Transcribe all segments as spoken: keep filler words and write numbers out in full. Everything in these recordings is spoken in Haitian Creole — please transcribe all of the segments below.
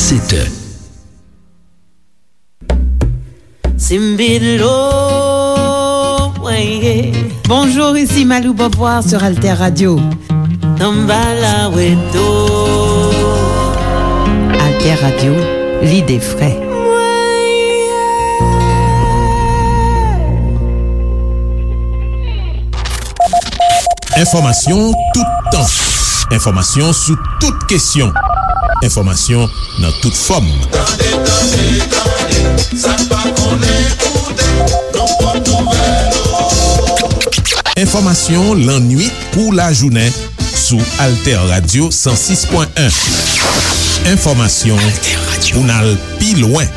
Sèt è. Simbilo, weye. Bonjour, ici Malou Beauvoir sur Alter Radio. Samba la weto. Alter Radio, lide fre. Enfòmasyon toutan. Enfòmasyon sou tout kesyon. Enfòmasyon nan tout fòm. Tande, tande, tande, sa n pa konnen koute, nou pot nouvèl ou. Enfòmasyon lannwit kou lajounen sou Alter Radio san sis pwen en. Enfòmasyon pou n al pi lwen.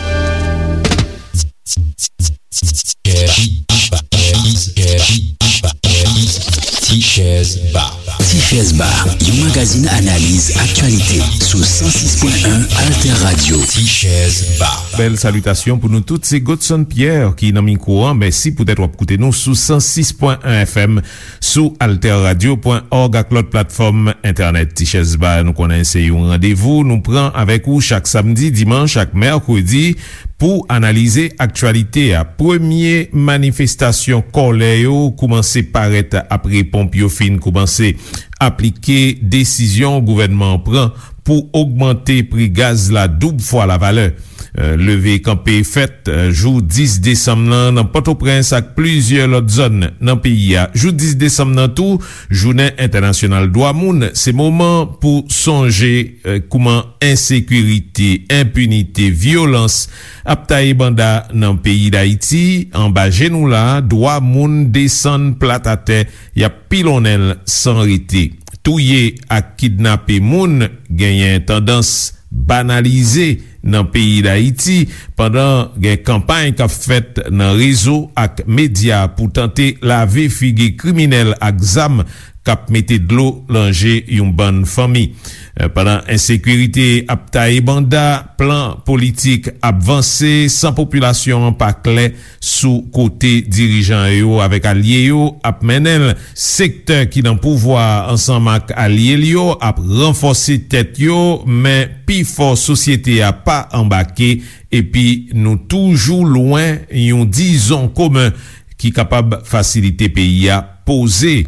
Tichèz Ba. Tichèz Ba, yon magazin analiz aktyalite sou san sis pwen en Alter Radio. Tichèz Ba. Bèl salitasyon pou nou tout. Se Godson Pierre ki nan mikwo an. Mèsi poutèt w ap koute nou sou san sis pwen en F M, sou alter radio pwen òg ak lòt platfòm entènèt. Tichèz Ba, nou konnen se yon randevou nou pran avèk ou chak samdi, dimanch ak mèkredi pou analize aktyalite a. Premye manifestasyon kòlè yo koumanse parèt apre ponp yo fin koumanse aplike desizyon gouvènman an pran pou ogmante pri gaz la doub fwa lavalè. Euh, leve kanpe fèt, euh, jou dis desanm nan nan Pòtoprens ak plizyè lòt zòn nan peyi a. Jou dis desanm nan tou, jounen entènasyonal dwa moun, se moman pou sonje, euh, kouman ensekirite, enpinite, vyolans ap taye banda nan peyi Dayiti, anba je nou la, dwa moun desann plat atè, y ap pilonnen l san rete. Touye ak kidnape moun genyen tandans banalize nan peyi Dayiti, pandan gen kanpay k ap fèt nan rezo ak medya pou tante lave figi kriminèl ak zam k ap mete dlo nan je yon bann fanmi. Eh, pandan ensekirite ap taye banda, plan politik ap vanse san popilasyon an pa klè sou kote dirijan yo avèk alye yo ap mennen l. Sektè ki nan pouvwa a ansanm ak alye l yo ap ranfòse tèt yo, men pifò sosyete a pa anbake, epi nou toujou lwen yon dizon komen ki kapab fasilite peyi a poze.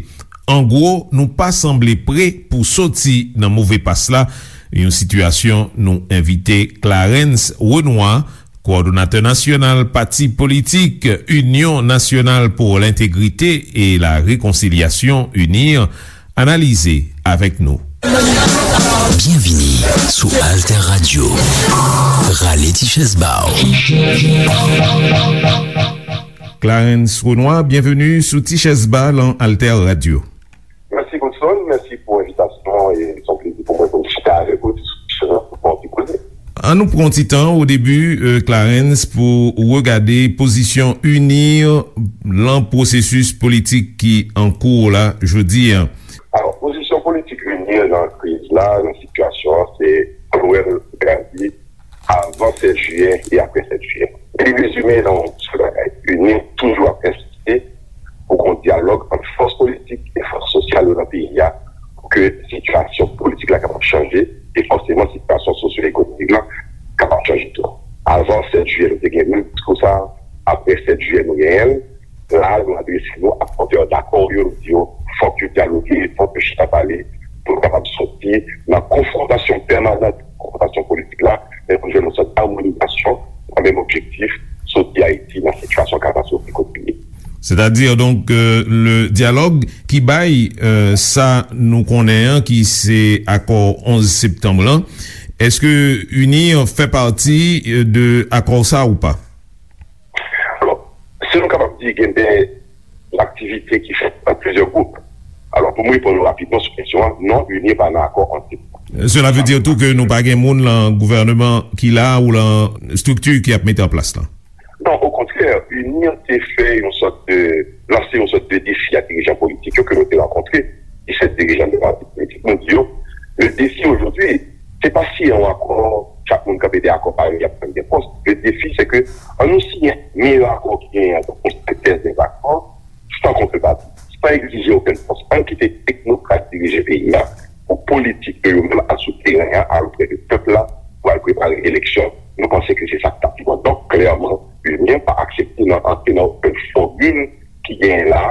An gwo, nou pa sanble pre pou soti nan move pas la, yon sitiyasyon nou envite Clarens Renois, kowòdonatè nasyonal pati politik Inyon Nasyonal pou Lentegrite e la Rekonsilyasyon, UNIR, analize avèk nou. Byenvini sou Alter Radio. Rale ti chèz ba w. Clarens Renois, byenveni sou Ti Chèz Ba lan Alter Radio. Mèsi, Godson. Mèsi pou envitasyon an e se yon plezi pou mwen pou m chita avèk ou sou kesyon pou n koze. An nou pran ti tan o debi, euh, Clarens, pou regade pozisyon UNIR lan pwosesis politik ki an kou la jodi a. Alò, pozisyon politik UNIR nan kriz la, nan sitiyasyon an, se Joël Gadi, avan sèt jiyè e apre sèt jiyè. Li rezime nan yon sèl bagay. UNIR toujou ap ensiste pou gen yon dyalòg ant fòs politik e fòs sosyal yo nan peyi a pou ke sitiyasyon politik la kapab chanje e fòseman sitiyasyon sosyo-ekonomik la kapab chanje tou. Avan sèt jiyè, nou te gen menm diskou sa a. Apre sèt jiyè, nou genyen l. La, nou adrese nou ak pòtè dakò yo, nou di yo, fòk yo dyaloge, fòk yo chita pale, pou nou kapab soti nan konfwontasyon pèmanan, konfwontasyon politik la, men pou jwenn yon sòt amonizasyon nan menm objektif, soti Ayiti nan sitiyasyon katastwofik kote li ye. Sètadi, donk, euh, le dyalòg ki bay, euh, sa nou konnen an, ki se akò onz septanm lan, èske UNIR fè pati, euh, de akò sa ou pa? Alò, si nou kapab di gen de aktivite ki fèt nan plizyè gwoup. Alò, pou mwen reponn ou rapidman sou kesyon an, non, UNIR pa nan akò anti. Cela veut dire tou ke nou pa gen moun lan gouvèneman ki la ou lan estrikti ki ap mete an plas lan? Non, okontrè, UNIR te fè yon sòt de, lanse yon sòt de defi a dirijan politik yo ke nou te rankontre, disèt dirijan de pati politik. Nou di yo, le defi ojodwi, se pa siyen yon akò, chak moun kanpe de akò parèy, y ap pran de pòs. Le defi, se ke an nou siyen meyè akò ki genyen an, donk yon sentèz de akò, san kontrepati, san egzije okenn fòs. Ann kite teknokrat dirije peyi a pou politik yo, yo menm al sou teren an, al oprè de pèp la, pou al prepare eleksyon. Nou panse ke se sa k t ap pi bon. Donk, klèman, UNIR pa aksepte nan antre nan okenn fòmil ki genyen la,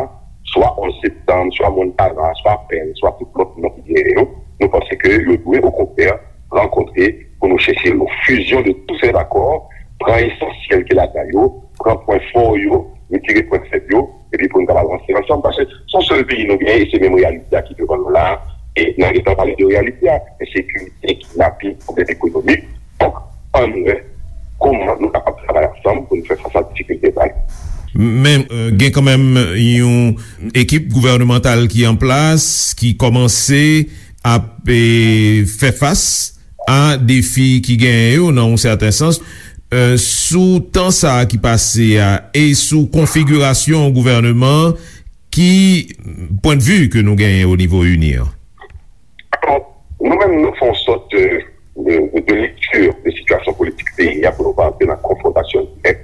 swa onz septanm, swa Montana, swa Pèn, swa tout lòt non ki genyen yo. Nou panse ke yo dwe, okontrè, rankontre pou nou chèche yon fusion de tous ces accords, pran esansyèl ki ladan yo, pran pwen fò yo, retire pwen fèb yo, epi pou nou kapab avanse ansanm, paske se yon sèl peyi nou genyen, e se menm reyalite a ki devan nou la, e n a gentan pale de reyalite a, ensekirite, kidnaping, pwoblèm ekonomik. Donk, ann wè kòman nou kapab travay ansanm pou nou fè fas a difikilte sa yo. Men, euh, gen kanmenm yon ekip gouvènemantal ki an plas, ki kòmanse ap, eh, fè fas a defi ki genyen yo, nan yon sèten sans, euh, sou tan sa a ki pase a e sou konfigirasyon gouvèneman an, ki pwennvi ke nou genyen o nivo UNIR? Alò, nou menm, nou fè yon sòt de, de, de, de lekti de sitiyasyon politik peyi a pou nou pa antre nan konfwontasyon dirèk.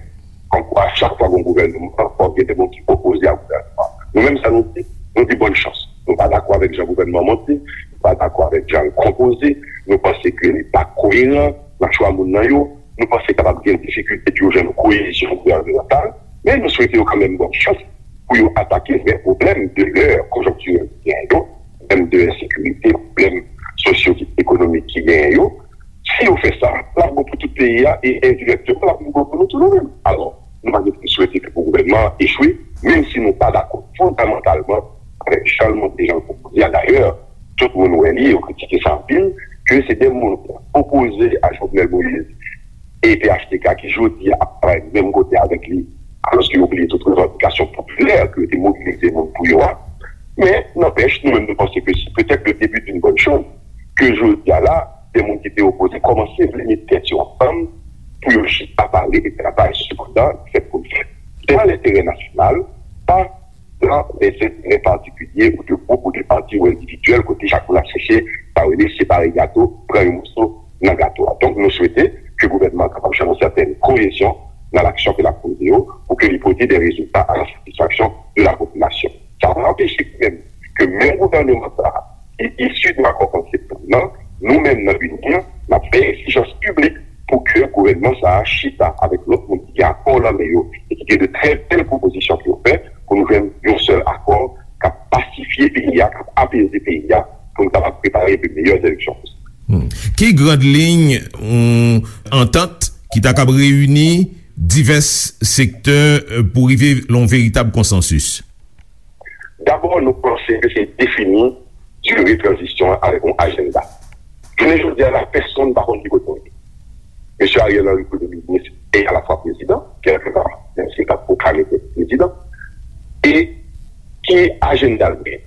Kòmkwa, chak fwa gen yon gouvènman, fòk gen de moun ki opoze a gouvènman. Nou menm, sa nou di, nou di bòn chans. Nou pa dakò avèk jan gouvènman an monte, nou pa dakò avèk jan l konpoze, nou panse ke li pa koyeran nan chwa moun nan yo, nou panse kapab gen difikilte pou yo jwenn yon koyezyon gouvènemantal, men nou swete yo kanmenm bòn chans pou yo atake vrè pwoblèm de lè konjonktirèl ki genyen yo, pwoblèm de ensekirite, pwoblèm sosyo-ekonomik ki genyen yo. Si yo fè sa, l ap bon pou tout peyi a e endirèkteman, l ap bon pou nou tou nou menm. Alò, nou pa gen pou n swete ke pou gouvènman an echwe, menm si nou pa dakò fondamantalman avèk jan l monte, jan l konpoze a. Dayè, tout moun wè li, yo kritike sa anpil, ke se de moun ki opoze a Jovenel Moïse e P H T K ki jodi a ap travay menm kote avèk li, alòske yo bliye tout revandikasyon popilè ke yo te mobilize moun pou yo a. Men, nanpèch, nou menm nou panse ke se petèt le début d'une bonne chose, ke jodi a la, de moun ki te opoze kòmanse vle met tèt yo ansanm pou yo chita pale de travay. Sepandan, fèt pou l fèt. Se nan lenterè nasyonal, pa nan lèzenterè patikilye ou de gwoup ou de pati ou endividyèl, kote chak moun ap chèche, sa yo rele separe gato, pran yon moso nan gato a. Donk, nou swete ke gouvènman an kapab jwenn yon sètèn koyezyon nan laksyon ke l ap poze yo, pou ke li pote de rezilta a la satisfaksyon de la popilasyon. Sa pa anpeche menm ke menm gouvènman sa a, ki isi de akò onz septanm nan, nou menm nan UNIR, n ap fè egzijans piblik pou ke gouvènman sa a chita avèk lòt moun ki gen akò nan men yo e ki gen de trè bèl pwopozisyon pou yo fè, pou nou jwenn yon sèl akò k ap pasifye peyi a, k ap apeze peyi a, pou nou kapab prepare de meyè eleksyon posib. Hmm. Ki grand liy yon antant ki ta kab reyini divès sektè, euh, pou rive lan yon veritab konsansis? Dabò, nou panse ke se defini dire tranzisyon an avèk yon ajanda. Jounen jodi a la, pèsonn pa konn ki kote l ye. Mesye Ariel Henry, premye minis e alafwa prezidan, kèlkeva, menm si l pa t pwoklame tèt li prezidan, e ki ajanda l genyen?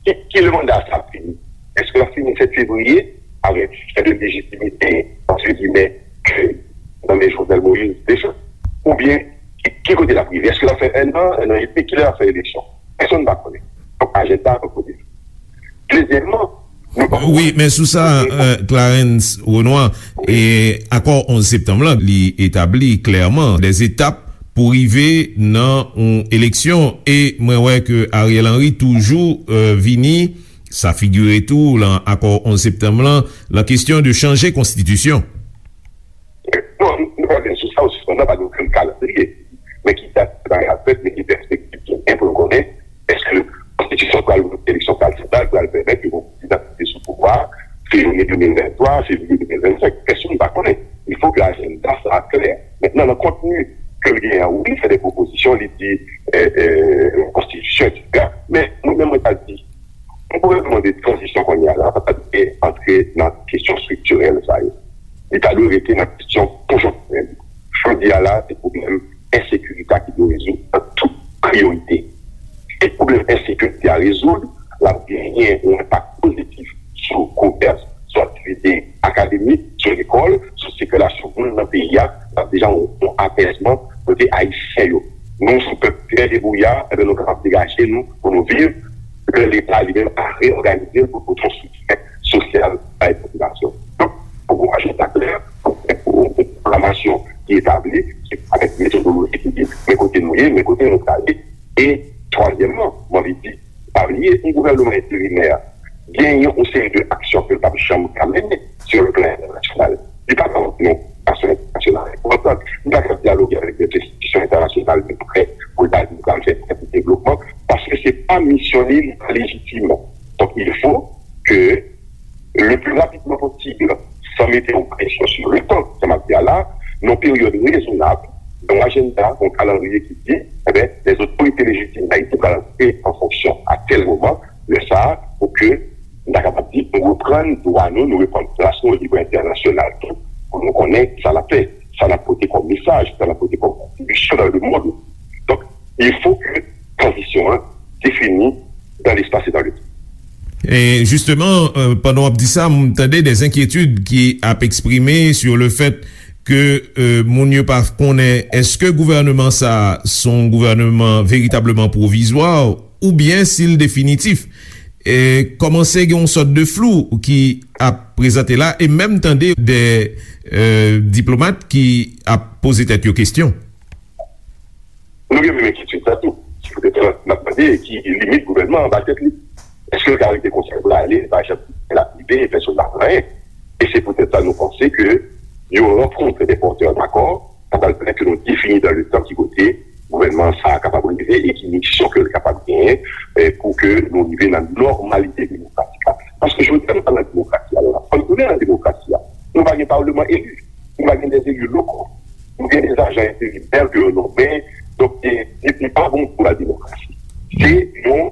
Ki, ki lè manda sa ap fini? Èske l ap fini sèt fevriye avèk fen de lejitimite, entre guillemets, ke nan men Jovenel Moïse deja? Oubyen, ki, ki kote l ap rive? Èske l ap fè ennan, ennan edmi? Kilè l ap fè eleksyon? Pèsonn pa konnen. Donk, ajanda an kote. Dezyèmman, nou pa... Wi, men sou sa, euh, Clarens Renois, e akò onz septanm lan, li etabli klèman de etap pou rive nan yon eleksyon. E mwen wè ke Ariel Henry toujou, euh, vini, sa figire tou lan akò onz septanm lan, lan kesyon de chanje konstitisyon. Non, nou pa gen sou sa, ou sispann la, pa gen okenn kalandriye. Men ki dat bagay ap fèt, men ki pèspektiv ki gen pou nou konnen, èske konstitisyon pral vote, eleksyon pral fèt la, pral pèmèt ke yon prezidan ki te sou pouvwa a, fevriye de mil venntwa, fevriye de mil vennsenk, pèsonn pa konnen. Il faut que ajanda sa a klè. Mentnan, nan kontni ke l genyen an, wi, li fè de pwopozisyon, li di, euh, euh, konstitisyon, etsetera. Men, mwen menm, mwen ta di, yon gouvènman de tranzisyon kounye a la pa ta dwe antre nan kesyon estriktirèl sa yo. Li ta dwe rete nan kesyon konjonktirèl. Jodi a la, se pwoblèm ensekirite a ki dwe rezoud an tout priyorite. Si pwoblèm ensekirite a rezoud, l ap genyen yon enpak pozitif sou komès, sou aktivite akademik, sou lekòl, sou sikilasyon moun nan peyi a, l ap deja yon, yon apèzman kote Ayisyen yo. Nou, se yon pèp trè debouya, enben, nou kapab degaje nou pou nou viv, lè Leta li menm a reyòganize l pou pote yon soutyen sosyal bay popilasyon. Donk, pou yon ajanda klè, pou, pou yon pwoklamasyon ki etabli, ki avèk metodoloji ki di, men kote nou ye, men kote nou prale. E twazyèmman, mwen anvi di, pa bliye, yon gouvènman enterimè genyen yon seri de aksyon ke l p ap janm ka mennen sou le plan entènasyonal. Li pa ka yon enstitision entènasyonal enpòtan. Li pa ka dyaloge avèk dèt enstitisyon entènasyonal de prè pou l ta di l pral fè tèl devlopman, paske se pa misyon li, li pa lejitim. Donk, il faut que le plus rapidement possible, sans mettre une pression sur le temps, sa m ap di a la, nan yon peryòd rezonab, yon ajanda, yon kalandriye ki di, enben, les autorités légitimes d'Haïti pral aji an fonksyon a tèl moman, lè sa a, pou ke nou ta kapab di, nou reprann dwa nou, nou reprann plas nou o nivo entènasyonal tou, pou nou konnen sa n ap fè, sa n ap pote kòm mesaj, sa n ap pote kòm kontribisyon dans le monde. Donk, il faut que tranzisyon an définie dans l'espace et dans le temps. E jisteman, euh, pandan w ap di sa, m tande de enkyetid ki ap eksprime sur le fait ke, euh, moun yo pa konnen èske gouvènman sa a se yon gouvènman veritableman pwovizwa oubyen si l definitif. E kòmanse gen yon sòt de flou ki ap prezante la, e menm tande de, euh, diplomat ki ap poze tèt yo kesyon. Nou gen menm enkyetid sa tou. Se poutèt sa n ap mande ki limit gouvènman an ba tèt li. Èske l ka rete konsa pou l ale, l pa janm, l ap rive, pèsonn pa konn anyen? E se poutèt sa nou panse ke yon rankont de pòtè dakò, sa pral pèmèt ke nou defini dans le temps ki kote gouvènman sa a kapab rive e ki misyon ke l kapab genyen, eh, pou ke nou rive nan nòmalite demokratik la. Paske jodi a nou pa nan demokrasi a la. Fò n tounen nan demokrasi a. Nou pa gen palman eli. Nou pa gen de eli lokal. Nou gen de ajan enterimè ke yo nonmen. Donk, e, e, li pa bon pou la demokrasi. Se yon,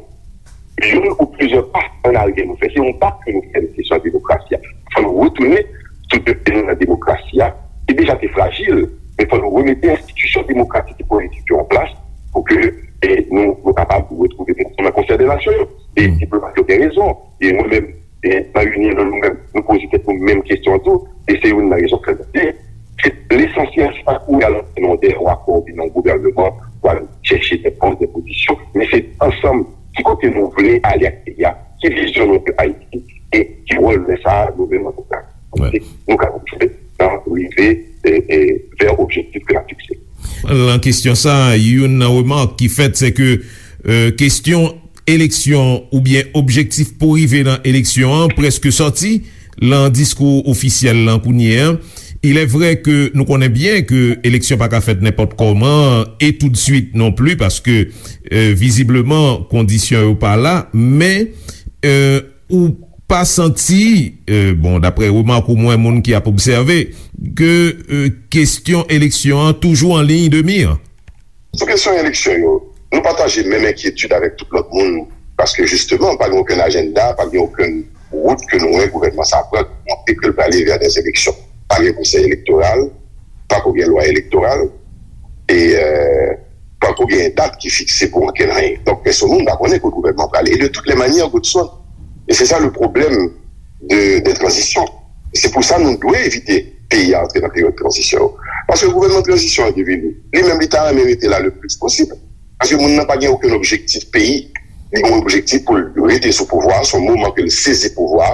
youn ou plizyè pa an aryè nou fè. Se yon pa ke nou fè nan kesyon demokrasi a. Fò nou retounen sou de pye nou nan demokrasi a, ki deja te frajil, men fò nou remete enstitisyon demokratik e politik yo an plas pou ke, e, nou, nou kapab retwouve nou nan Konsèy de Nasyon yo. E diplomat yo gen rezon. E mwen menm, e, nan Unien, nou menm, nou poze tèt nou menm kesyon an tou. E se youn nan rezon k fè nou di, se lesansyèl, se pa kouri al antre nan de yon akò oubyen nan yon gouvènman pou al chèche de pòs, de pozisyon, men se ansanm ki kote nou vle ale ak peyi a, ki vizyon nou de Ayiti, e ki wòl nou sa a, nou menm antouka. Nou kapab jwe nan rive, e, e, vè objektif ke n ap fikse. Nan kesyon sa a, youn nan remak ki fèt, se ke, e, kesyon eleksyon oubyen objektif pou rive nan eleksyon an prèske sòti nan diskou ofisyèl lan kounye a. Il est vrai que nou konnen byen ke eleksyon pa ka fèt nenpòt kòman e toutswit non pli, paske, e, vizibleman, kondisyon yo pa la, men, e, ou pa santi, e, bon, daprè remak ou, mwen, moun ki ap obsève, ke, e, kesyon eleksyon an toujou an liy de mi? Sou kesyon eleksyon yo, nou pataje menm enkyetid avèk tout lòt moun, paske jisteman, pa gen okenn ajanda, pa gen okenn wout ke nou wè gouvènman sa a pran, ki montre ke l prale vè de eleksyon. Pa gen konsèy elektoral, pako gen lwa elektoral, e, e, pako gen dat ki fikse pou ankenn anyen. Donk, pèsonn moun pa konnen kote gouvènman prale. E de toutes les manières, Godson, e se sa le problème de, de tranzisyon. Se pou sa nou dwe evite peyi a antre nan peryòd tranzisyon yo. Paske gouvènman tranzisyon an ki vini, li menm li ta renmen rete la le plis posib. Paske moun nan pa gen okenn objektif peyi. Li gen yon objektif pou l rete sou pouvwa, se yon moman ke l sezi pouvwa,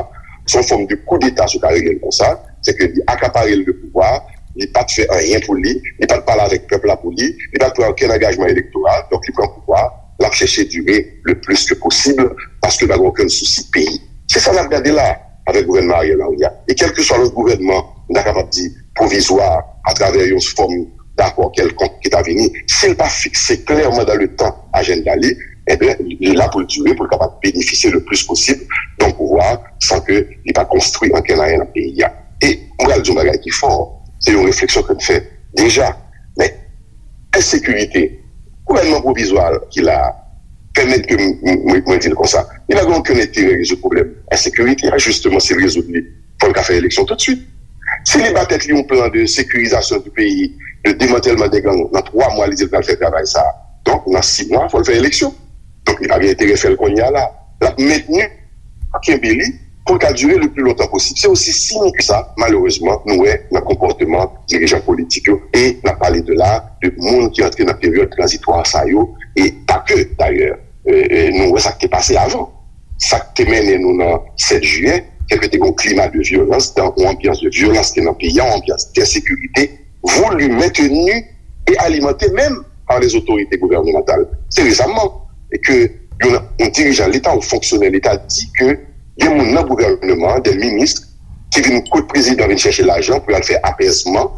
se yon fòm de koudeta si w ka rele l konsa, se ke li akapare l de pouvwa, li pa t fè anyen pou li, li pa t pale avèk pèp la pou li, li pa t pran okenn angajman elektoral, donk li pran pouvwa, l ap chèche dire le plis ke posib, paske l pa gen okenn sousi peyi. Se sa n ap gade la avèk gouvènman Ariel Henry a. E kèlkeswa lòt gouvènman, nou ta kapab di pwovizwa, atravè yon fòm dakò kèlkonk ki ta vini, si l pa fikse klèman dans le temps ajanda li, enben, li la pou l dire, pou l kapab benefisye le plis posib de yon pouvwa san ke li pa konstwi ankenn anyen nan peyi a. E m pral di yon bagay ki fò, se yon refleksyon ke m fè deja, men ensekirite, gouvènman pwovizwa ki la a, pèmèt ke m, m, mwen, mwen di l konsa, li pa gen okenn enterè rezoud pwoblèm ensekirite a, jisteman, si l rezoud li, fò l ka fè eleksyon toutswit. Si li ba tèt li yon plan de sécurisation du pays, de démantèlman dè gang, nan twa mwa, li di l pral fè travay sa a. Donk, nan sis mwa, fò l fè eleksyon. Donk, li pa gen enterè fè l kounye a la. L ap mentni, kenbe li, pou l ka dire le pli lontan posib. Se osi simp ke sa, malerezman, nou wè nan konpòteman dirijan politik yo. E n ap pale de la, de moun ki antre nan peryòd tranzitwa sa yo, e pa ke, dayè. E, e, nou wè sa k te pase avan. Sa k te mennen nou nan sèt jiyè, se ke te gen yon klima de vyolans, yon anbyans de vyolans ki te nan peyi a, yon anbyans de ensekirite, voulu, maintenu et alimenté même par les autorités gouvernementales. Se resaman ke yon, yon dirijan Leta, yon fonksyonè Leta di ke gen moun nan gouvènman an, de minis, ki vin kot prezidan vin chèche lajan pou y al fè apèzman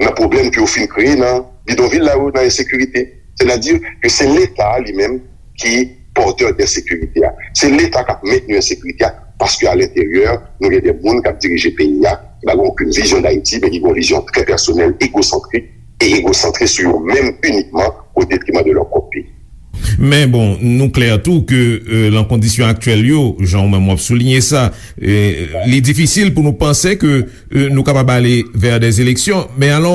nan pwoblèm ke yo fin kreye nan bidonvil la yo, nan ensekirite. Sètadi ke se Leta li menm ki pòtè de ensekirite a. Se Leta k ap mentni ensekirite a, paske alenteryè, nou gen de moun k ap dirije peyi a, ki pa gen okenn vizyon d Ayiti, men ki gen yon vizyon trè pèsonèl, egosantrik, e egosantre sou yo menm inikman, o detriman de lòt kòk peyi. Men bon, nou klè tou ke euh, lan kondisyon aktyèl yo, jan ou menm w ap soulinye sa, euh, li difisil pou nou panse ke euh, nou kapab ale vè de eleksyon. Men alò,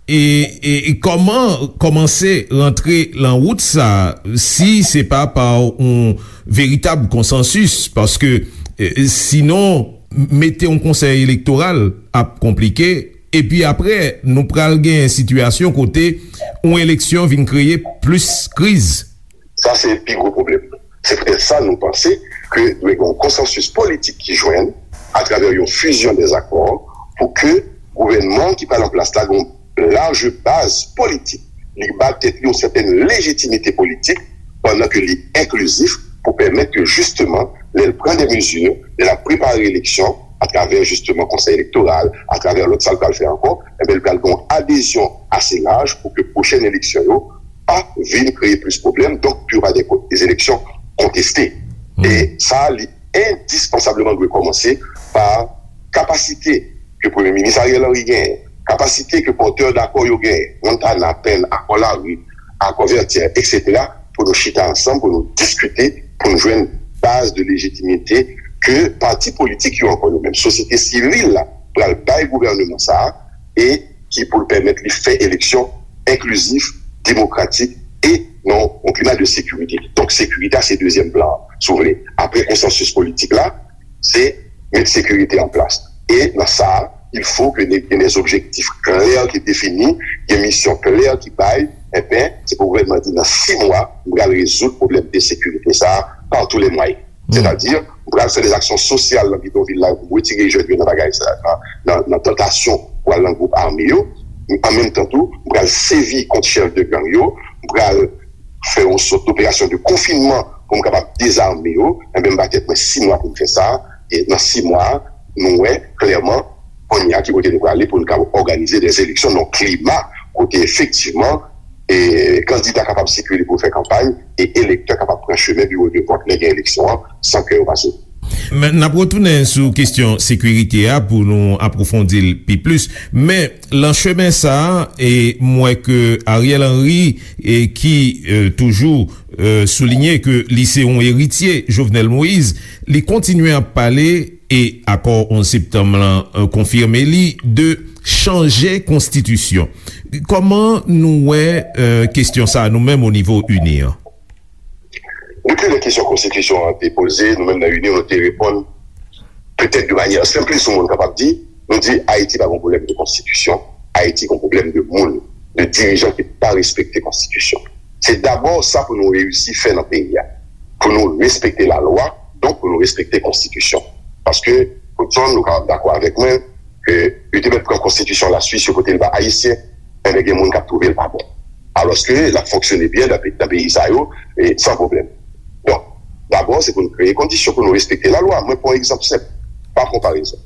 e, e, e kòman kòmanse rantre lan wout sa, si se pa pa yon veritab konsansis? Paske euh, sinon, mete yon konsèy elektoral ap konplike. Epi apre, nou pral gen sitiyasyon kote yon eleksyon vin kreye plis kriz. Sa se pi gwo pwoblèm. Se poutèt sa nou panse ke dwe gen yon konsansis politik ki jwenn atravè yon fizyon dèzakò pou ke gouvènman ki pral an plas la gen yon laj baz politik. Li ba tèt li yon sètèn lejitimite politik pandan ke li enklizif pou pèmèt ke jisteman, lè l pran de mezi, lè l ap prepare eleksyon, atravè jisteman konsèy elektoral, atravè lòt sa l pral fè ankò, enben l pral gen yon adezyon ase laj pou ke pwochèn eleksyon yo pa vin kreye plis pwoblèm, donk pou yo pa gen ko- de eleksyon konteste. E sa, li endispansableman dwe kòmanse pa kapasite ke Premye Minis Ariel Henry genyen, kapasite ke pòtè dakò yo genyen, Montana, Penn, Akò Lari, Akò Vètyè, etsetera, pou nou chita ansanm, pou nou diskite, pou nou jwenn baz de lejitimite ke pati politik yo ankò yo menm, sosyete sivil la, pral bay gouvèneman sa a, e ki pou l pèmèt li fè eleksyon enklizif, demokratik e nan yon klima de sekirite. Donk, sekirite a se dezyèm plan an, si w vle. Apre konsansis politik la, se met sekirite an plas. E nan sa a, il faut que gen des objectifs clairs ki defini, gen misyon klè ki bay, enben, se pou gouvènman di nan sis mwa, m pral rezoud pwoblèm de sekirite sa a par tous les moyens. Sètadi, m pral fè de aksyon sosyal nan bidonvil la pou m retire jèn yo nan bagay sa, nan, nan, nan tantasyon pou al nan gwoup ame yo. An menm tan tou, m pral sèvi kont chèf de gang yo, m pral fè yon sòt doperasyon de konfinman pou m kapab dezame yo. Enben, m ba tèt mwen sis mwa pou m fè sa. E nan sis mwa, nou wè klèman kounye a ki kote nou prale pou nou kapab òganize de eleksyon nan klima kote efektivman e kandida kapab sikile pou fè kanpay e elektè kapab pran chemen biwo de vòt lè gen eleksyon an san ke yo pa soti. Men, n ap retounen sou kesyon sekirite a pou nou apwofondi l pi plis. Men, lan chemen sa a, e m wè ke Ariel Henry, e ki e, toujou e, soulinye ke li se yon eritye Jovenel Moïse, li kontinye ap pale e akò onz septanm lan e, konfime li de chanje konstitisyon. Kòman nou wè e, kesyon sa a nou menm o nivo ini an? Gen plizyè kesyon konstitisyon an te poze, nou menm nan ini nou te reponn petèt de manyè senplis yon moun kapab di, nou di Ayiti pa gen pwoblèm de konstitisyon, Ayiti gen pwoblèm de moun, de dirijan ki pa respekte konstitisyon. Se dabò sa pou nou reyisi fè nan peyi a. Pou nou respekte lalwa, donk pou nou respekte konstitisyon. Paske, Godson, nou kapab dakò avèk mwen, ke yo te mèt pran konstitisyon Laswis, yo pote l ba Ayisyen, enben gen moun k ap twouve l pa bon. Alòske l ap fonksyone byen nan pe- nan peyi sa yo, e san pwoblèm. Donk, dabò, se pou nou kreye kondisyon pou nou respekte lalwa. Mwen pran yon egzanp senp, pa konparezon.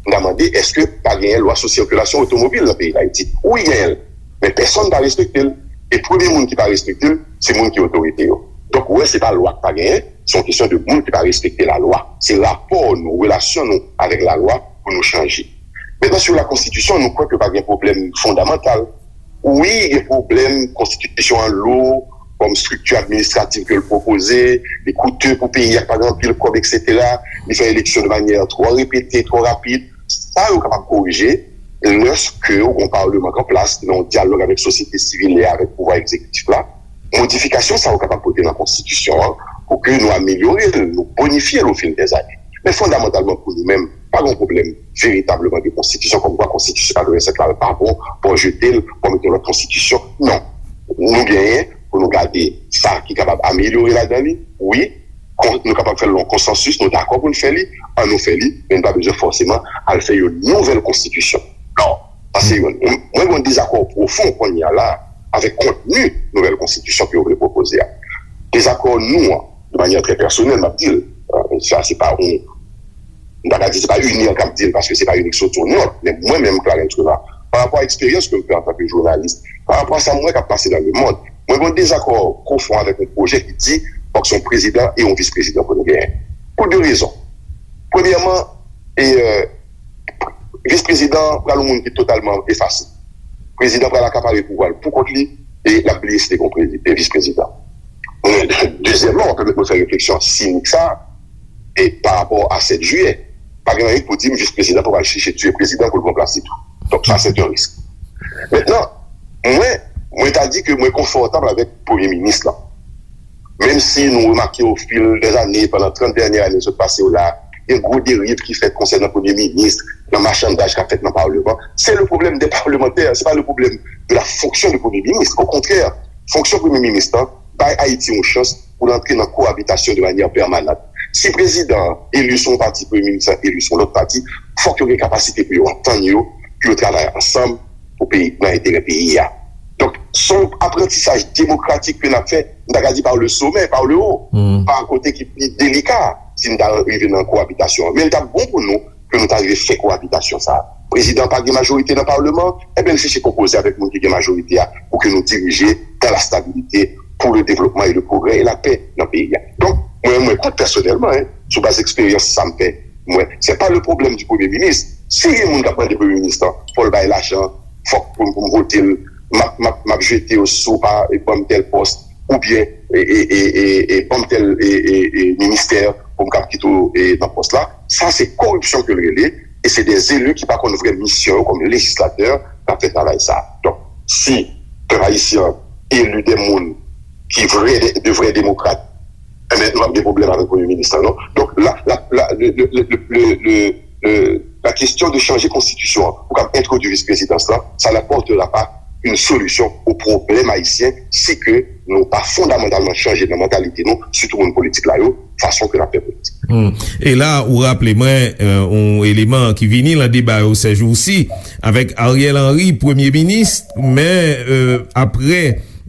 M ta mande, èske pa genyen lwa sou sikilasyon otomobil nan peyi Dayiti? Wi, genyen l. Men pèsonn pa respekte l. E premye moun ki pa respekte l, se moun ki otorite yo. Donk, ou wè, se pa lwa k pa genyen, se yon kesyon de moun ki pa respekte lalwa. Se rapò nou, relasyon nou avèk lalwa pou nou chanje. Mentnan, sou la konstitisyon, nou kwè ke pa gen pwoblèm fondamantal. Wi, gen pwoblèm, konstitisyon an lou, kòm estrikti administratif ke l pwopoze, li koute pou peyi a, pa gen anpil kòb, etsetera. Li fè eleksyon de manyè twò repete, twò rapid. Sa yo kapab korije lèske ou gen yon palman k an plas ki nan yon dyalòg avèk sosyete sivil e avèk pouvwa egzekitif la. Modifikasyon sa yo kapab pote nan konstitisyon an pou ke nou amelyore l, nou bonifye l ofil dèzane. Men fondamantalman pou nou menm, pa gen yon pwoblèm veritableman de konstitisyon, kòmkwa konstitisyon katrevennsèt la pa bon, pou jete l, pou mete yon lòt konstitisyon. Non. Nou genyen pou nou gade sa ki kapab amelyore ladan li, wi, kon- nou kapab fè l nan yon konsansis, nou dakò pou n fè li, ann nou fè li, men nou pa bezwen fòseman al fè yon nouvèl konstitisyon. Non, sa se youn. Mwen gen yon dezakò pwofon kounye a la avèk kontni nouvèl konstitisyon ke yo vle pwopoze a. Dezakò nou an, de manyè trè pèsonèl, m ap di l, euh, sa se pa yon M ta ka di se pa UNIR k ap di l, paske se pa UNIR ki soti yon nòt, men mwen menm, Clarens Renard, pa rapò a eksperyans ke m fè antanke jounalis, pa rapò a sa m wè k ap pase nan lemonn, mwen gen yon dezakò pwofon avèk yon pwojè ki di fòk se yon prezidan e yon vis prezidan pou nou genyen. Pou de rezon. Premyèman, e, e, vis prezidan pral yon moun ki totalman efase. Prezidan pral akapare pouvwa l pou kont li e l ap bliye si te gen yon prezi- e vis prezidan. Dezyèmman, w ap pèmèt mwen fè refleksyon sinik sa a, e pa rapò a sèt jiyè. Pa gen anyen pou di m vis prezidan pou al chèche tiye prezidan pou l pran plas li tou. Donk, sa, se yon risk. Mentnan, mwen, mwen ta di ke mwen konfòtab avèk premye minis lan. Menm si nou remake ofil dè zane, pandan trant dènye ane sot pase yo la, gen gwo deriv ki fèt konsènan premye minis, nan machandaj k ap fèt nan palman, se le problème des parlementaires, se pa le problème de la fonction de premye minis. Okontrè, fonksyon premye minis lan bay Ayiti yon chans pou l antre nan koabitasyon de manyè pèmanant. Si prezidan an eli sou yon pati, premye minis lan eli sou yon lòt pati, fòk yo gen kapasite pou yo antann yo, pou yo travay ansanm pou peyi, nan enterè peyi a. Donk, se yon aprantisaj demokratik ke n ap fè, m ta ka di par le sommet, par le haut, pa kote ki pi delika, si n ta rive nan koabitasyon an. Men l t ap bon pou nou ke nou ta rive fè koabitasyon sa a. Prezidan pa gen majorite nan palman, enben l chèche konpoze avèk moun ki gen majorite a pou ke nou dirije dans la stabilité, pour le développement et le progrès et la paix nan peyi a. Donk, mwen, mwen kwè pèsonèlman, en, sou baz eksperyans sa m fè, mwen, se pa le problème du premye minis. Si gen moun k ap mande premye minis lan, fò l bay lajan, fòk pou, pou m vote l, m ap, m ap, m ap jete yo si w pa ban m tèl pòs, oubyen e, e, e, e, e, ban m tèl e, e, e, ministè pou m kab kite w e, nan pòs la. Sa se koripsyon ke l rele, e se de eli ki pa konn vrè misyon yo kòm lejislatè k ap fè travay sa. Donk, si pèp ayisyen an eli de moun ki vrè, de, de vrè demokrat, enben, nou p ap gen pwoblèm avèk premye minis lan, non. Donk, la, la, la, le, le, le, le, le, le, le, la question de changer konstitisyon an pou kab entwodui vis prezidans lan, ça n'apportera pas une solution au problème haïtien si ke nou pa fondamantalman chanje nan mantalite nou, sitou moun politik la yo, fason ke n ap fè politik. Hmm. E la, ou raple mwen, euh, yon eleman ki vini nan deba yo sèjousi, avèk Ariel Henry, premye minis, men, euh, apre,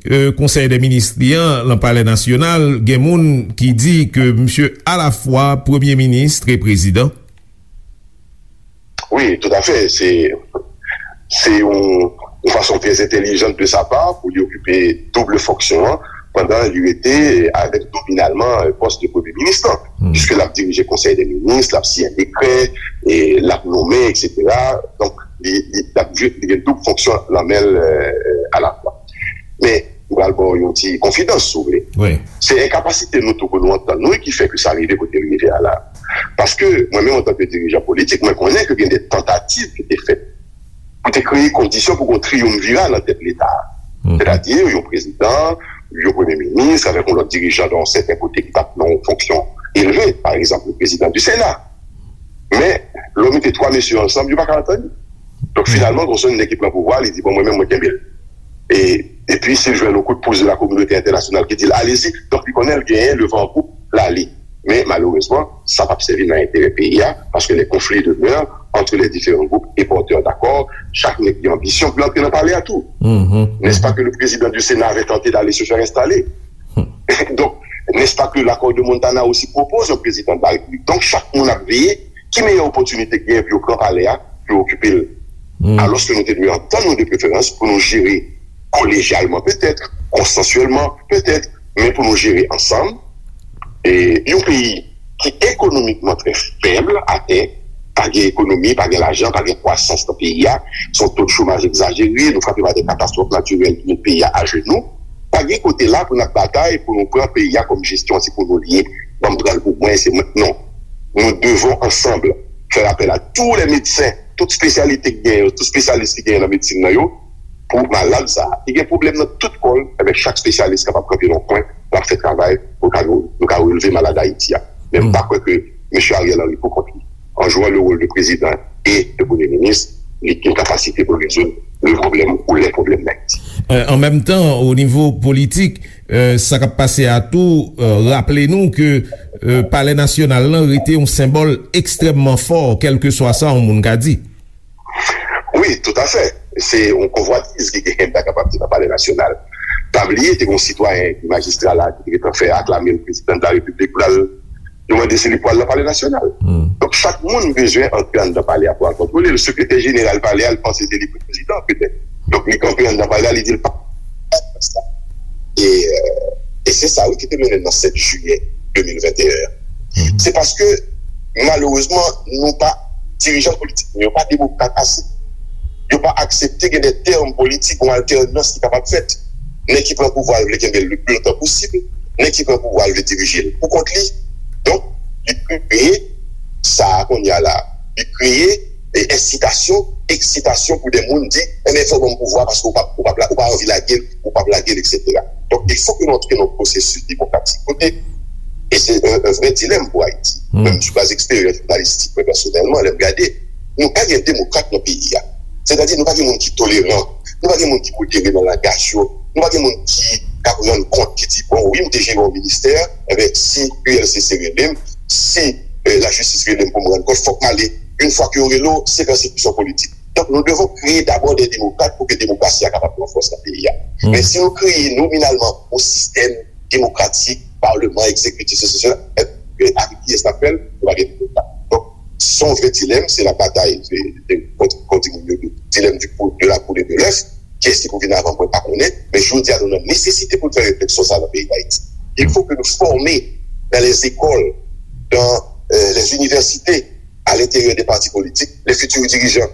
euh, konsèy dè minis li an, nan Palè Nasyonal, gen moun ki di ke misye alafwa premye minis e prezidan. Wi, toutafè. Se, se yon, yon fason trè entèlijan de sa pa pou li okipe doub fonksyon an, pandan li rete avèk nominalman pòs de premye minis lan. Hmm. Piske l ap dirije konsèy dè minis, l ap siyen dekrè, e l ap nonmen, etsetera. Donk, li, li, l ap jwe, li gen doub fonksyon nan men l, euh, alafwa. Men, m pral ba w yon ti konfidans, si w vle. Wi. Se enkapasite nou tou pou nou antann nou ki fè ke sa rive kote l rive a la. Paske, mwen menm, antanke dirijan politik, mwen konnen ke gen de tantativ ki te fèt pou te kreye kondisyon pou gen yon triyumvirat nan tèt Leta a. Mhm. Sètadi, yon prezidan, yon premye minis, avèk yon lòt dirijan nan yon sèten kote ki t ap nan yon fonksyon elve, pa egzanp, le prezidan di Sena. Men, lè w mete twa mesye ansanm, yo pa ka antann yo. Donk, finalman, gon sèl nèg ki pran pouvwa, li di, "Bon, mwen menm, mwen kenbe l." E, epi, si l jwenn yon kout pous de la kominote entènasyonal ki di l, "Allez-y," donk, li konnen l genyen le van an poup, l ale. Men, malerezman, sa p ap sèvi nan enterè peyi a, paske les conflits demeurent entre les différents groupes et porteurs d'accords, chak nèg gen anbisyon pou l antre nan palè a tou. Mhm. N'est-ce pas que le président du Sénat avait tenté d'aller se faire installer? Donk, n'est-ce pas que l'accord de Montana aussi propose un président de la République? Donk, chak moun ap veye ki meyè opòtinite k genyen pou yo pran palè a, pou yo okipe l. Hmm. Alòske nou te dwe antann nou de preferans pou nou jere kolejyalman petèt, konsansyèlman petèt, men pou nou jere ansanm, e, yon peyi ki ekonomikman trè fèb atè, pa gen ekonomi, pa gen lajan, pa gen kwasans nan peyi a, se yon to de chomaj egzajere, nou frape pa de katastwòf natirèl ki met peyi a ajenou. Pa gen kote la pou n ap batay pou nou pran peyi a kòm jesyon se pou nou l ye, ban m pran l pou mwen, se mwen. Non. Nous devons ensemble faire appel à tous les médecins, tout espesyalite ki genyen, tout espesyalis ki genyen nan medsin nan yo, pou malad sa a. Li gen pwoblèm nan tout kò l, enben chak espesyalis kapab kanpe nan yon kwen, l ap fè travay pou ka nou, nou ka releve malad Ayiti a. Men m pa kwè ke mesye Ariel Henry pou kont li, en jouant le rôle de président et de premier ministre, li gen kapasite pou rezoud le problème ou les problèmes d'Haïti. Euh, an menm tan, o nivo politik, euh, sa k ap pase a tou, euh, raple nou ke, euh, Palè Nasyonal lan rete yon senbòl ekstrèmman fò, kèlkeswa sa yon moun ka di. Wi, toutafè. Se yon konvwatiz ki genyen, m ta kapab di, nan Palè Nasyonal. Pa bliye, te gen yon sitwayen ki majistra la, ki te gentan fè aklame l prezidan de la Repiblik, pou l al, yo mande si li pral nan Palè Nasyonal. Hmm. Chak moun bezwen antre anndan palè a pou al kontwole l. Sekretè jeneral palè a, l panse se li prezidan, petèt. Donk, li kanpe anndan palè a, li di l pa sa. E, euh, e se sa, wi, ki te mennen nan sèt jiyè de mil venteyen an. Se paske, malerezman, nou pa, dirijan politik nou yo pa demokrat ase. Yo pa aksepte gen de tèm politik, yon altènans ki kapab fèt. Nèg ki pran pouvwa a vle kenbe l le pli lontan posib, nèg ki pran pouvwa a vle dirije l pou kont li. Donk, li kreye sa a kounye a la. Li kreye, e, ensitasyon, eksitasyon pou de moun di, "Enben, fò w ban m pouvwa paske ou p ap, ou p ap la, ou pa anvi lage l, ou p ap lage l, etsetera." Donk, il faut que nou antre nan yon pwosesis demokratik kote, e se yon, yon vrè dilèm pou Ayiti. Menm sou baz eksperyans jounalistik, mwen pèsonèlman, lè m gade, nou pa gen demokrat nan peyi a. Sètadi, nou pa gen moun ki toleran, nou pa gen moun ki modere nan langaj yo, nou pa gen moun ki ka rann kont, ki di, "Bon, wi, m te jere yon ministè, enben, si U L C C rele m, si, eh, lajistis rele m pou m rann kont, fòk m ale." Yon fwa ke yo rele w, se pèsekisyon politik. Donk, nou devon kreye dabò de demokrat pou ke demokrasi a kapab pran fòs nan peyi a. Men si nou kreye nominalman yon sistèm demokratik, palman, egzekitif, sesi, sela, e, e, avèk kiyès n ap fè l, nou pa gen demokrat. Donk, se yon vrè dilèm, se la batay, se, se, kon, kon di moun yo, dilèm du pou-, de la poule et de l'œuf, kiyès ki pou vin avan, mwen pa konnen, men jodi a, nou nan nesesite pou n fè refleksyon sa nan peyi Dayiti. Il faut que nous formions dans les écoles, dans, euh, les universités, à l'intérieur des partis politiques, les futurs dirigeants,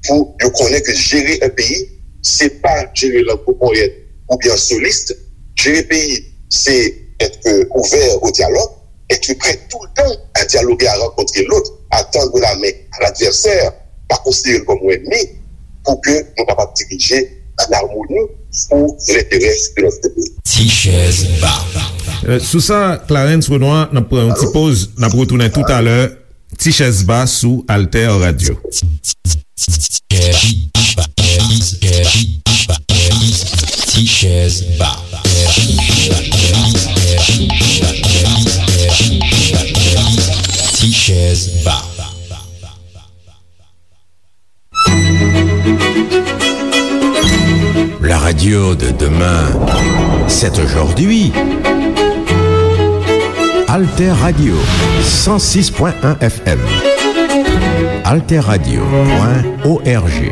pou yo konnen ke jere yon peyi, se pa jere l an gwo ponyèt oubyen an solis. Jere peyi, se être ouvert au dialogue, être prêt tout le temps à dialoguer, à rencontrer l'autre, à tendre la main à l'adversaire, pa konsidere l kòm yon ènmi, pou ke nou kapab dirije an amoni pou lenterè de notre pays. Ti chèz ba. Euh, sou sa, Clarens Renois, n ap pran yon ti poz, n ap retounen toutalè. Ti chèz ba sou Alter Radio. Ti chèz ba. Ti chèz ba. La radio de demain, c'est aujourd'hui. Alter Radio, cent six point un F M. Alter Radio point O R G.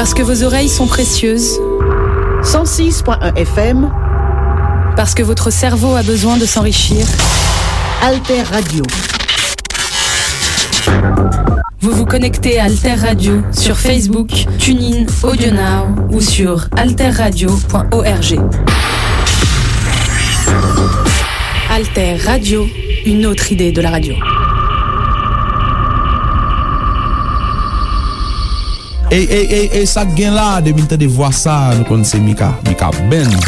Parce que vos oreilles sont précieuses. Cent six point un F M. Parce que votre cerveau a besoin de s'enrichir. Alter Radio. Vous vous connectez à Alter Radio sur Facebook, TuneIn, AudioNow ou sur alterradio point org. Alter Radio, une autre idée de la radio. Ey, ey, ey, ey, sa k gen la? Depi n tande vwa sa, nou konn se Mika, Mika Band.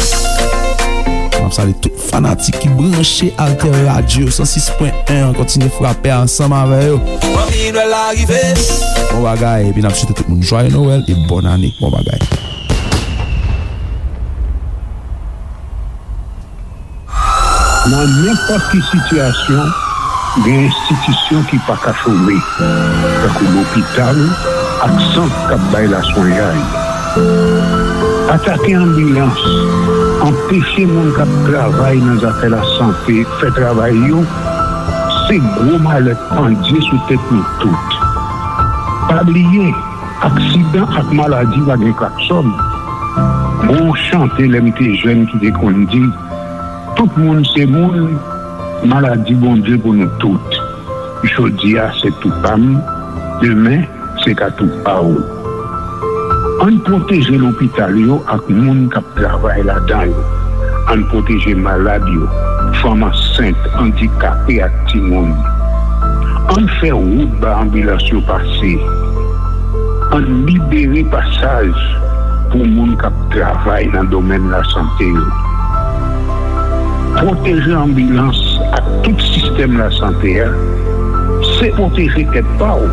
M ap salye tout fanatik ki branche Alter Radio san sis pwen en an, kontinye frape ansanm avè yo. Bon bagay, epi n ap swete tout moun jwaye Nwèl e bòn ane. Bon bagay. Nan nenpòt ki sitiyasyon, gen enstitisyon ki pa ka chome, tankou lopital ak sant k ap bay laswenyay. Atake anbilans, anpeche moun k ap travay nan zafè lasante fè travay yo, se gwo malè k pandye sou tèt nou tout. Pa bliye, aksidan ak maladi pa gen klaksòn. Gon chante lè m te jèn ki te konn di, tout moun se moun, maladi Bondye pou nou tout. Jodi a se tou pa m, demen se ka tou pa w. Ann pwoteje lopital yo ak moun k ap travay ladan yo. Ann pwoteje malad yo, fanm ansent, andikape ak timoun. Ann fè wout ba anbilans yo pase. Ann libere pasaj pou moun k ap travay nan domèn lasante yo. Pwoteje anbilans ak tout sistèm lasante a, se pwoteje tèt pa w.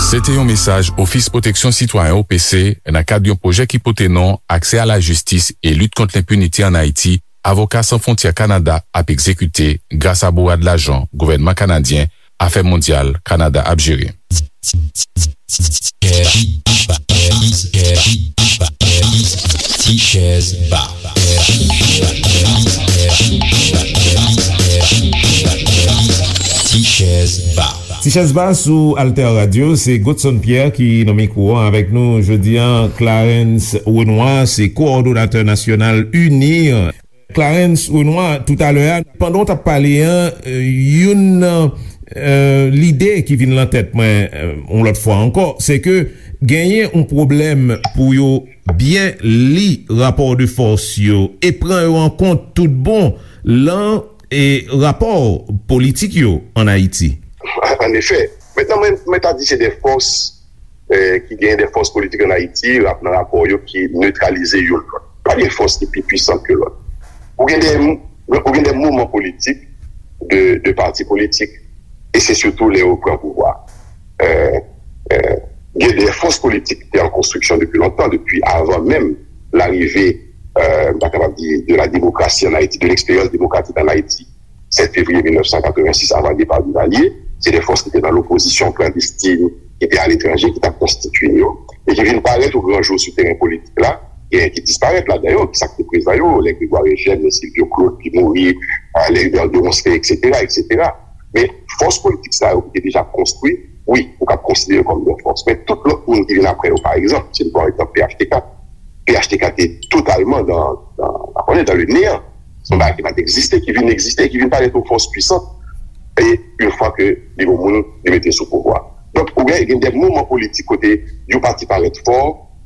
Se te yon mesaj Ofis Pwoteksyon Sitwayen, O P C, nan kad yon pwojè ki pote non Aksè a la jistis e lit kont lenpinite ann Ayiti, Avoka San Fwontyè Kanada ap egzekite gras a bourad lajan gouvènman kanadyen, Afè Mondyal Kanada ap jere. Ti chèz ba. Ti chèz ba. Ti chèz ba sou Alter Radio, se Godson Pierre ki nan mikwo an avèk nou jodi an. Clarens Renois, se kowòdonatè nasyonal UNIR. Clarens Renois, toutalè a, pandan w t ap pale an, youn nan lide ki vin lan tèt mwen yon lòt fwa ankò, se ke genyen yon pwoblèm pou yo byen li rapò de fòs yo e pran yo an kont tout bon lan e rapò politik yo ann Ayiti. An efè, mentnan mwen, mwen ta di se de fòs ki gen de fòs politik ann Ayiti, rap nan rapò yo ki netralize youn lòt. Pa gen fòs ki pi pwisan ke lòt. Ou gen de, ou gen de mouvman politik de, de pati politik, e se sitou lè yo pran pouvwa. Gen de fòs politik ki te an konstriksyon depi lontan, depi avan menm larive, m ta kapab di, de la demokrasi ann Ayiti, de leksperyans demokratik ann Ayiti, sèt fevriye mil nèf san katrevensis, avan depa Duvalier, se de fòs ki te nan lopozisyon klandestin, ki te aletranje, ki t ap konstitye yo, e ki vin parèt o gran jou sou teren politik la, genyen ki disparèt ladan yo, ki sa k te prezan yo, lè Grégoire Eugène, lè Sylvio Claude ki mouri, lè Hubert de Ronceray, etsetera, etsetera. Men fòs politik sa yo ki te deja konstwi, wi, ou kab konsidere yo kòm de fòs. Men tout lòt moun ki vin apre yo, pa egzanp, si n pran egzanp P H T K, P H T K te totalman dan, dan, pa konnen, dan le neyan. Se yon bagay ki pa t egziste, ki vin egziste, ki vin parèt yon fòs pwisant. E yon fwa ke li gon moun, li mete sou pouvwa. Donk, ou gen, gen de mouvman politik kote yon pati parèt fò,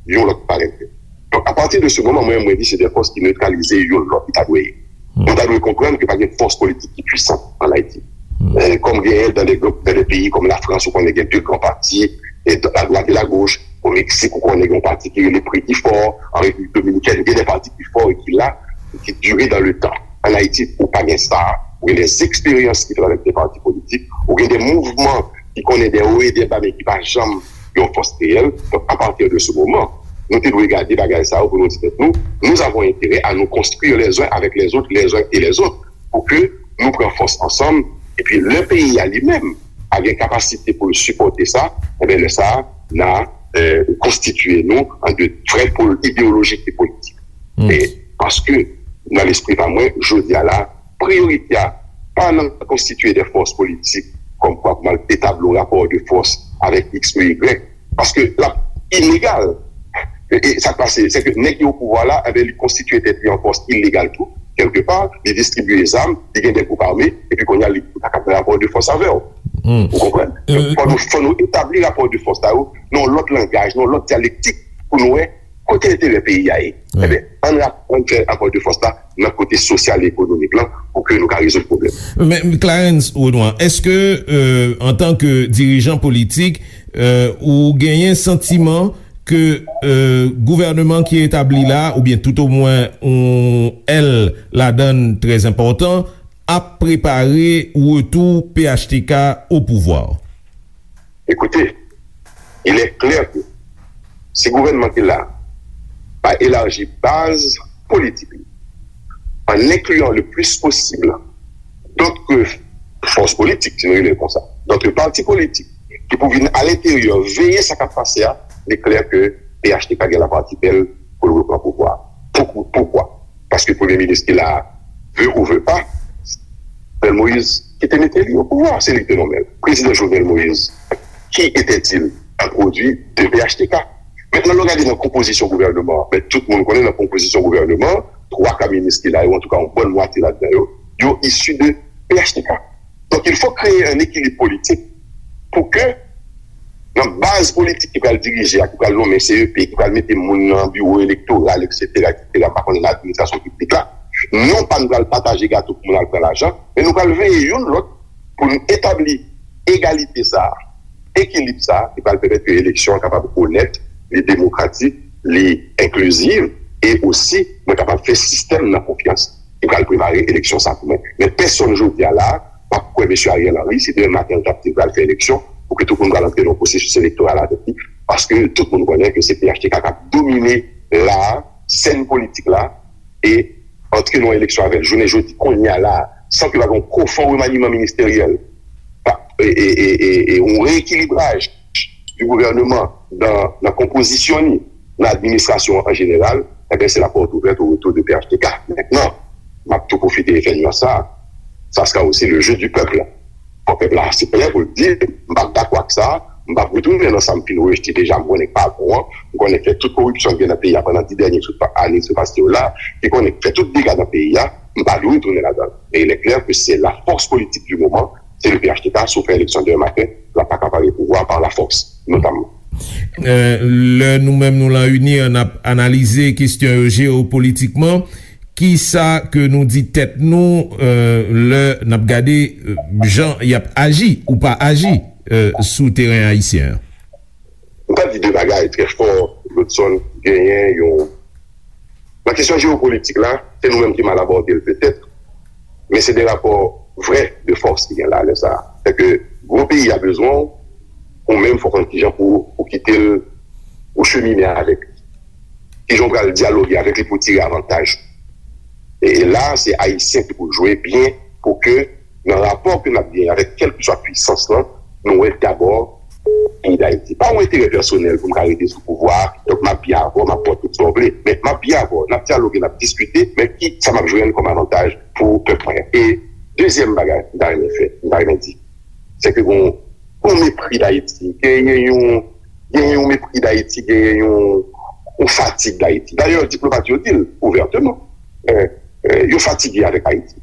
yon lòt parèt fèb. Donk, apati de se moman, mwen, mwen di se de fòs ki netralize youn lòt, ki ta dwe ye. Nou ta dwe konprann ke pa gen fòs politik ki pwisan ann Ayiti. Kòm genyen dan de, dan de peyi kòm Lafrans, ou konnen gen de gran pati, e a dwat e a goch. O Meksik, ou konnen gen yon pati ki rele Pretty Four. An Repiblik Dominikèn, gen de pati ki fò e ki la, e ki dire dan le tan. Ann Ayiti, ou pa gen sa. Ou gen de eksperyans ki travèse pati politik. Ou gen de mouvman ki konnen de wo e de ba, men ki pa janm yon fòs reyèl. Donk, apati de se moman, nou te dwe gade bagay sa yo pou nou di tèt nou, nous avons intérêt à nous construire les uns avec les autres, les uns et les autres, pou ke nou pran fòs ansanm, epi lè peyi a li menm a gen kapasite pou l sipòte sa, enben lè sa a, n a konstitye nou an de vrè pòl ideyolojik e politik. E paske, nan lespri pa mwen, jodi a la, priyorite a pa nan konstitye de fòs politik kòmkwa pou m al etabli yon rapò de fòs avèk X ou Y, paske l ap ilegal. E, e sa k pase, se ke nèg ki o pouvwa la, enben, li konstitye tèt li an fòs ilegal tou, kèlkepa, li distribye zam, li gen de gwoup ame, epi kounye a, li pa ka fè rapò de fòs avè w. Ou konprann? Fò nou, fò nou etabli rapò de fòs sa yo nan yon lòt langaj, nan yon lòt dyalektik, pou nou wè kote enterè peyi a ye. Ebyen, ann rap-, ann fè rapò de fòs la nan kote sosyal e ekonomik lan pou ke nou ka rezoud pwoblèm. Men, Clarens Renois, èske, euh, antanke dirijan politik, euh, ou genyen santiman ke, euh, gouvènman ki etabli la, oubyen toutomwen yon èl ladan l trè enpòtan, ap prepare retou P H T K o pouvwa? Écoutez, il est clair que si gouvènman ki la pa elaji baz politik li, en incluant le plus possible d'autres forces politiques, si nou rele l konsa, d'autres partis politiques, ki pou vin alenteryè veye sa k ap pase a, li klè ke P H T K gen lapartibèl pou l repran pouvwa. Pou, poukwa? Paske premye minis ki la, veut ou veut pas, Jovenel Moïse ki te mete li o pouvwa, se li ki te nonmen l. Prezidan Jovenel Moïse, qui était-il? Un produit de P H T K. Mentnan, lè w gade nan konpozisyon gouvènman an, men tout moun konnen nan konpozisyon gouvènman an, twa ka minis ki la yo, antouka yon bòn mwatye ladan yo, yo isi de P H T K. Donk, il faut créer un équilibre politique pou ke nan baz politik ki pral dirije a, ki pral nonmen C E P, ki pral mete moun nan biwo elektoral, et cetera, et cetera, m pa konnen nan administrasyon piblik la, non pa nou pral pataje gato pou moun al pran lajan, men nou pral veye youn lòt pou nou etabli egalite sa a, ekilib sa a, ki pral pèmèt ke eleksyon an kapab onèt, li demokratik, li enkliziv, e osi nou kapab fè sistèm nan konfyans ki pral prepare eleksyon sa pou mwen. Men pèsonn jodi a la a p ap kwè mesye Ariel Henry si demen maten l t ap di l pral fè eleksyon, pou ke tout moun pral antre nan yon pwosesis elektoral avèk li, paske tout moun konnen ke se P H T K k ap domine la a, sèn politik la, e antre nan yon eleksyon avè l jounen jodi, kounye a la a, san ke pa gen yon pwofon remaniman ministeryèl, pa, e, e, e, e, e yon reekilibraj di gouvènman nan, nan konpozisyon li, nan administrasyon an an jeneral, ebyen, se la porte ouverte au retour de P H T K. Mentnan, m ap tou pwofite fè nuans sa, ça sera aussi le jeu du peuple. Fò pèp la se prè pou l di, m p ap dakò ak sa, m p ap retounen nan sa m fin rejte deja, m konnen k pa bon an, m konnen k fè tout koripsyon k gen nan peyi a pandan dis dènye sou pa, ane sou pase yo la, ki konnen k fè tout dega nan peyi a, m pa dwe retounen ladan l. Men il est clair que c'est la force politique du moment, se le P H T K, si w fè eleksyon demen maten, l ap pa ka pare pouvwa par la force, notamman. Euh, lè nou menm nou lan UNIR, n ap analize kesyon yo jewopolitikman, kisa ke nou di tèt nou, euh, lè n ap gade, euh, jan y ap aji ou pa aji, euh, sou teren ayisyen an? M ta di de bagay trè fò, Godson, genyen yon, nan kesyon jewopolitik la, se nou menm ki mal abòde l petèt, men se de rapò vrè de fòs ki gen la lè sa a. Sèke gwo peyi a bezwen w, ou menm fò w konn kijan pou ou kite l, ou chemine avèk li. Kijan w pral dyaloge avèk li pou w tire avantaj. E, e la, se Ayisyen ki pou jwe byen pou ke nan rapò ke n ap genyen avèk kèlkeswa pwisans lan, nou wè dabò peyi Dayiti. Pa yon enterè pèsonèl pou m ka rete sou pouvwa a, donk m ap byen avè w, m ap ba w tout sa w vle. Men m ap byen avè w, n ap dyaloge, n ap diskite, men ki sa m ap jwenn kòm avantaj pou pèp mwen? E dezyèm bagay m ta renmen fè, m ta renmen di, se ke gon, gon mepri Dayiti, genyen yon, genyen yon mepri Dayiti, genyen yon, yon fatig Dayiti. Dayè, diplomat yo di l ouvèteman. Eh, eh, yo fatige avèk Ayiti.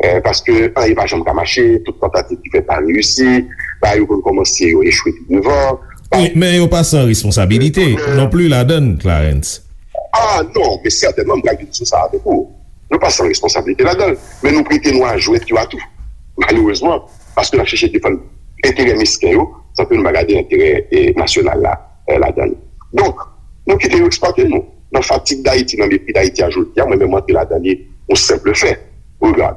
Eh, paske anyen pa janm ka mache, tout tantativ ki fèt pa reyisi, bagay yo konn kòmanse, yo echwe pi devan. Wi, men yo pa san responsabilite non pli ladan l, Clarens. Ah non, men sètènman, m pral vin sou sa avèk ou. Nou pa san responsabilite ladan l, men nou prete nou a jwèt yo a tou. Malerezman, paske n ap chèche defann enterè mesken yo, san ke nou pa gade enterè, eh, nasyonal la, eh, ladan l. Donk, nou kite yo eksplwate nou. Nan fatig Dayiti, nan mepri Dayiti a jodi a, mwen menm m antre ladan li, yon senp fè. Regard,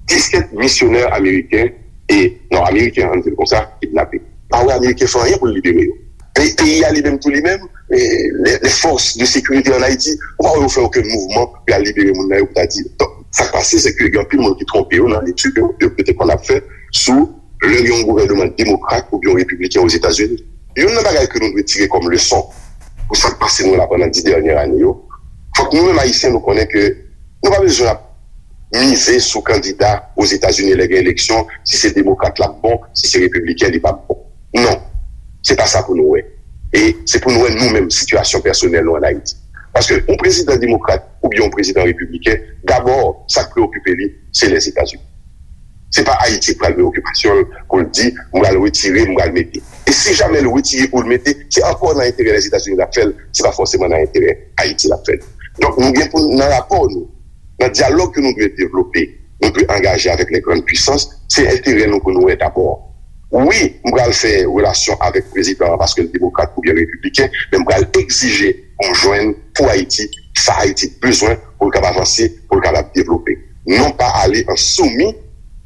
disèt misyonè ameriken e, non, ameriken, ann di l konsa, kidnape. Pa wè ameriken fè anyen pou l libere yo. Pe-, peyi a li menm tou li menm, eh, les, les forces de sécurité en Haïti, ou pa wè yo fè okenn mouvman pou y al libere moun nan yo pou ta di. Donk, sa k pase, se ke gen anpil moun ki twonpe yo nan letid yo, yo, yo te konn ap fè sou lè gen yon gouvènman demokrat oubyen yon repibliken Ozetazini. Youn nan bagay ke nou dwe tire kòm leson pou sa k pase nou la pandan dis dènyè ane yo, fòk nou menm Ayisyen nou konnen ke nou pa bezwen ap mize sou kandida Ozetazini lè gen eleksyon, si se demokrat l ap bon, si se repibliken li p ap bon. Non, se pa sa pou nou wè. E se pou nou wè nou menm sitiyasyon pèsonèl nou ann Ayiti. Paske yon prezidan demokrat oubyen yon prezidan repibliken, dabò, sa k preokipe li, se Lèzetazini. Se pa Ayiti k pral preokipasyon l pou l di, "M pral retire, m pral mete." E si jamè l retire pou l mete, se ankò nan enterè Lèzetazini l ap fè l, se pa fòseman nan enterè Ayiti l ap fè l. Donk, nou gen pou, nan rapò nou, nan dyalòg ke nou dwe devlope, nou dwe angaje avèk les grandes puissances, se enterè nou pou nou wè dabò. Wi, m pral fè relasyon avèk prezidan an paske l demokrat oubyen repibliken, men m pral egzije pou m jwenn pou Ayiti sa Ayiti bezwen pou l kapab avanse, pou l kapab devlope. Non pa ale an soumis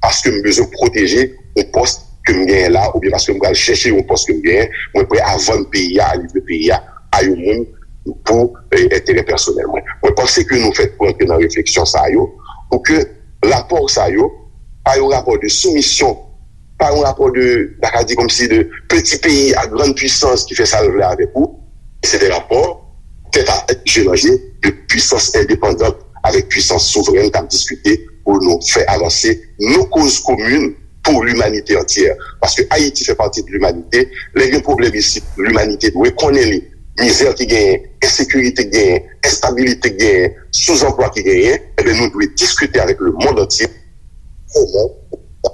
paske m bezwen pwoteje yon pòs ke m genyen la oubyen paske m pral chèche yon pòs ke m genyen, mwen prè a vann peyi a, a livre peyi a a yon moun pou eh, enterè pèsonèl mwen. Mwen panse ke nou fèt pou antre nan refleksyon sa yo, pou ke rapò sa yo pa yon rapò de soumisyon, pa yon rapò de, n ta ka di kòmsi de peti peyi a grann pwisans ki fè sa l vle avèk ou. Se de rapò tèt a tèt, je nan je, de pwisans endepandan avèk pwisans souvrèn k ap diskite pou nou fè avanse nou koz komin pou limanite antyè. Paske Ayiti fè pati de limanite. Lè gen pwoblèm isit, limanite dwe konnen li. Mizè ki genyen, ensekirite ki genyen, enstabilite ki genyen, souzanplwa ki genyen, ebyen nou dwe diskite avèk lemonn antye kòman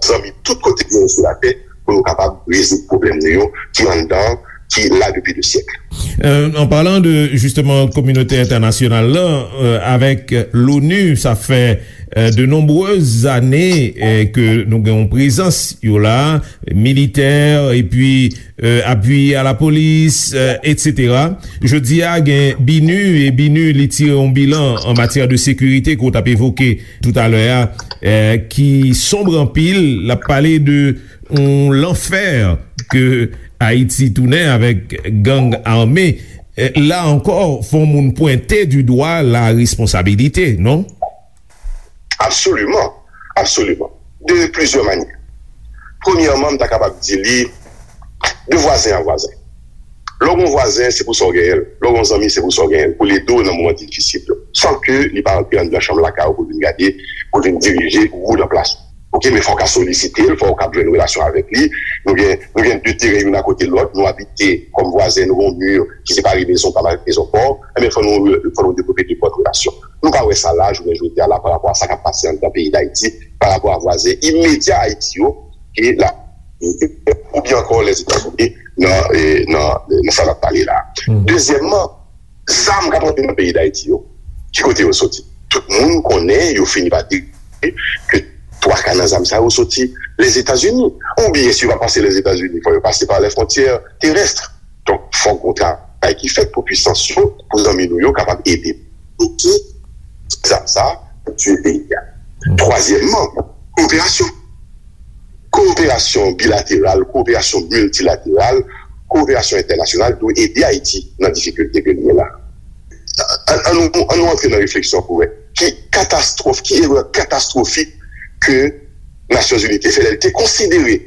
zanmi tout kote ki genyen sou latè pou nou kapab rezoud pwoblèm nou yo ki anndan, ki la depi de syèk. Euh, en parlant de justement communauté internationale là, euh, avec l'ONU, ça fait euh, de nombreuses années euh, que nous avons présence là, militaire et puis euh, appui à la police, euh, et cetera. Jodi a gen BINUH e BINUH li tire yon bilan an matyè de sekirite ke w t ap evoke toutalè a, euh, ki sonb anpil, l ap pale de yon lanfè ke Ayiti tounen avèk gang ame. La ankò, fò moun pwente du dwa la responsabilité, non? Absoliman, absoliman. De plizyè manyè. Premyèman, m ta kapab di li de vwazen a vwazen. Lè w gen yon vwazen, se pou sa w genyen l. Lè w gen yon zanmi, se pou sa w genyen l. Pou l ede w nan moman difisil yo. San ke li pa antre anndan chanm lakay ou pou l vin gade, pou l vin dirije ou nan plas ou. Oke, men fò w ka solisite l, fò w ka jwenn relasyon avèk li. Nou gen, nou gen de teren youn akote lòt, nou abite kòm vwazen, nou gen yon mi ki separe mezon pa m avèk mezon pa w. Enben, fò nou, fò nou devlope de bòn relasyon. Nou pa wè sa la, jounen jodi a la, pa rapò a sa k ap pase anndan peyi Dayiti, pa rapò a vwazen imedya Ayiti yo, ki la, oubyen ankò Lèzetazini, nan, nan, nan sa n ap pale la. Dezyèmman, zam k ap rantre nan peyi Dayiti yo, ki kote yo soti? Tout moun konnen, yo fini pa deklare ke twa ka nan zam sa yo soti Lèzetazini. Oubyen, si yo pa pase Lèzetazini, fò yo pase pa lè fwontyè terès. Donk, fòk gon travay ki fèt pou pwisans yo, pou zanmi nou yo kapab ede bloke zam sa pou tiye peyi a. Twazyèmman, kowoperasyon. Kowoperasyon bilateral, kowoperasyon miltilateral, kowoperasyon entènasyonal dwe ede Ayiti nan difikilte ke l ye la. An nou antre nan refleksyon pou wè ki katastwòf, ki erè katastwofik ke Nasyonzini te fè lè l te konsidere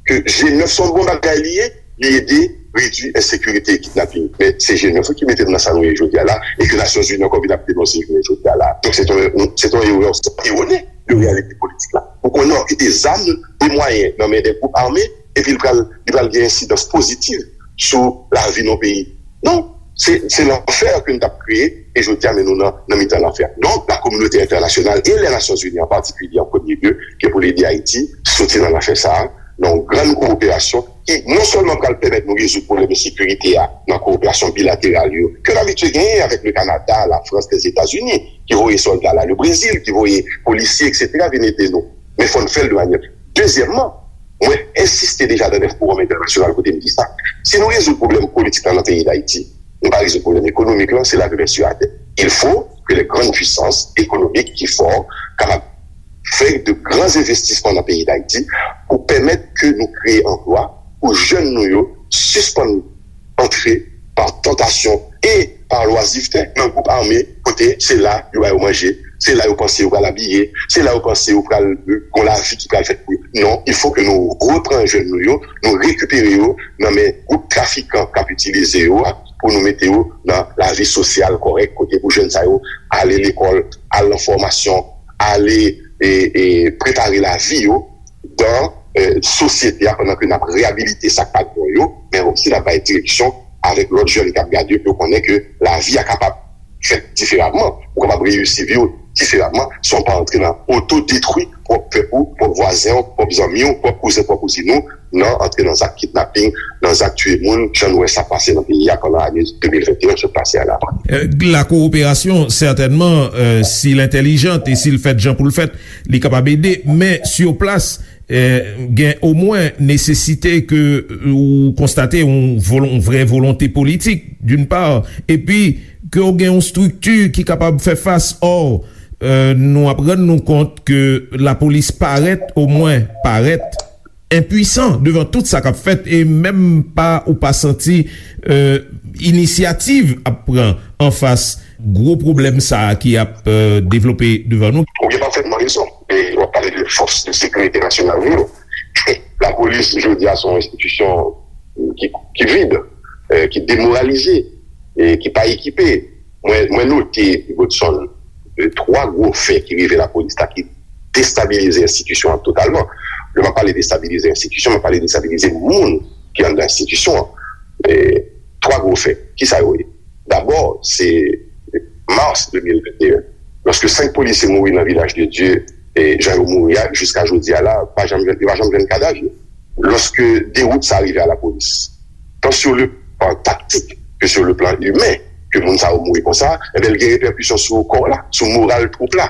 ke G nèf se yon bon bagay li ye, li ede redui ensekirite e kidnaping. Men se G nèf wi ki mete nou nan sa nou ye jodi a la, e ke Nasyonzini ankò vin ap denonse jounen jodi a la. Donk se te yon, se te yon erè san iwone de reyalite politik la. Ou konnen w kite zam e mwayen nan men de gwoup ame, epi l pral, li pral gen ensidans pozitiv sou lavi nan peyi. Non, se, se lanfè ke n t ap kreye, e jodi a, men nou nan, nan mitan lanfè. Donk, la kominote entènasyonal e lè Nasyonzini an patikilye, an premye lye, ke pou l ede Ayiti soti nan lanfè sa a, nan yon grann kowoperasyon ki non sèlman pral pèmèt nou rezoud pwoblèm ensekirite a nan kowoperasyon bilateral yo, ke n abitye genyen avèk le Kanada, la Frans, Lèzetazini, ki voye sòlda la, le Brezil, ki voye polisye, etsetera, vin ede nou. Men fò n fè l de manyè. Dezyèmman, mwen ensiste deja nan dèf fowòm entènasyonal kote m di sa. Si nou rezoud pwoblèm politik la nan peyi Dayiti, nou pa rezoud pwoblèm ekonomik lan, se lave men sou atè. Il faut que les grandes puissances économiques ki fò kapab fè de gran envestisman nan peyi Dayiti pou pèmèt ke nou kreye anplwa pou jèn nou yo sispann antre pa tantasyon e pa lwazivte nan gwoup ame kote se la yo ba yo manje, se la yo panse yo pral abiye, se la yo panse yo pral gen yon lavi ki pral fèt pou yo. Non, il faut que nou repran jèn nou yo, nou rekipere yo nan men gwoup trafikan k ap itilize yo a pou nou mete yo nan lavi sosyal kòrèk kote pou jèn sa yo ale lekòl, al nan fòmasyon, ale e, e prepare lavi yo dan e, sosyete a, pandan ke n ap reyabilite sa k pa t bon yo, men osi n ap bay direksyon avèk lòt jèn k ap gade yo, pou yo konnen ke lavi a kapab fèt diferaman, ou kapab reyisi vi w diferaman, san w pa antre nan otodetwi pwòp pèp ou, pwòp vwazen w, pwòp zanmi w, pwòp kouzen, pwòp kouzin ou, nan antre nan zak kidnaping, nan zak tiye moun, jan nou wè sa pase nan peyi a pandan ane de mil venteyen sot pase a la. Euh, la coopération, certainement, euh, si l entèlijant e si l fèt jan pou l fèt, li kapab ede, men sur place, euh, gen omwen nesesite ke, euh, ou konstate yon, volon, yon vrè volonte politik, d'une part, epi ke w gen yon strikti ki kapab fè fas. Or, euh, nou ap rann nou kont ke lapolis parèt, omwen parèt, enpwisan devan tout sa k ap fèt, e menm pa, ou pa santi, euh, inisyativ ap pran anfas gwo pwoblèm sa a ki ap, euh, devlope devan nou. Ou gen pafètman rezon. E w ap pale de fòs de sekirite nasyonal nou yo. Lapolis, jodi a, se yon enstitisyon ki, ki vid, euh, ki demoralize, e ki pa ekipe. Mwen, mwen note, Godson, euh, twa gwo fè ki rive lapolis la ki destabilize enstitisyon an totalman. Lè m ap pale destabilize enstitisyon, m ap pale destabilize moun ki anndan enstitisyon an. E twa gwo fè. Kisa yo ye? Dabò, se mas de mil venteyen, lòske senk polisye mouri nan Vilaj de Dye, e jan yo mouri a, jiska jodi a la, pa janm jwenn, yo pa janm jwenn kadav yo. Lòske dewout sa rive a lapolis, tan sur le plan taktik ke sur le plan imen, ke moun sa yo mouri konsa, enben, l gen repèkisyon sou kò w la, sou moral twoup la.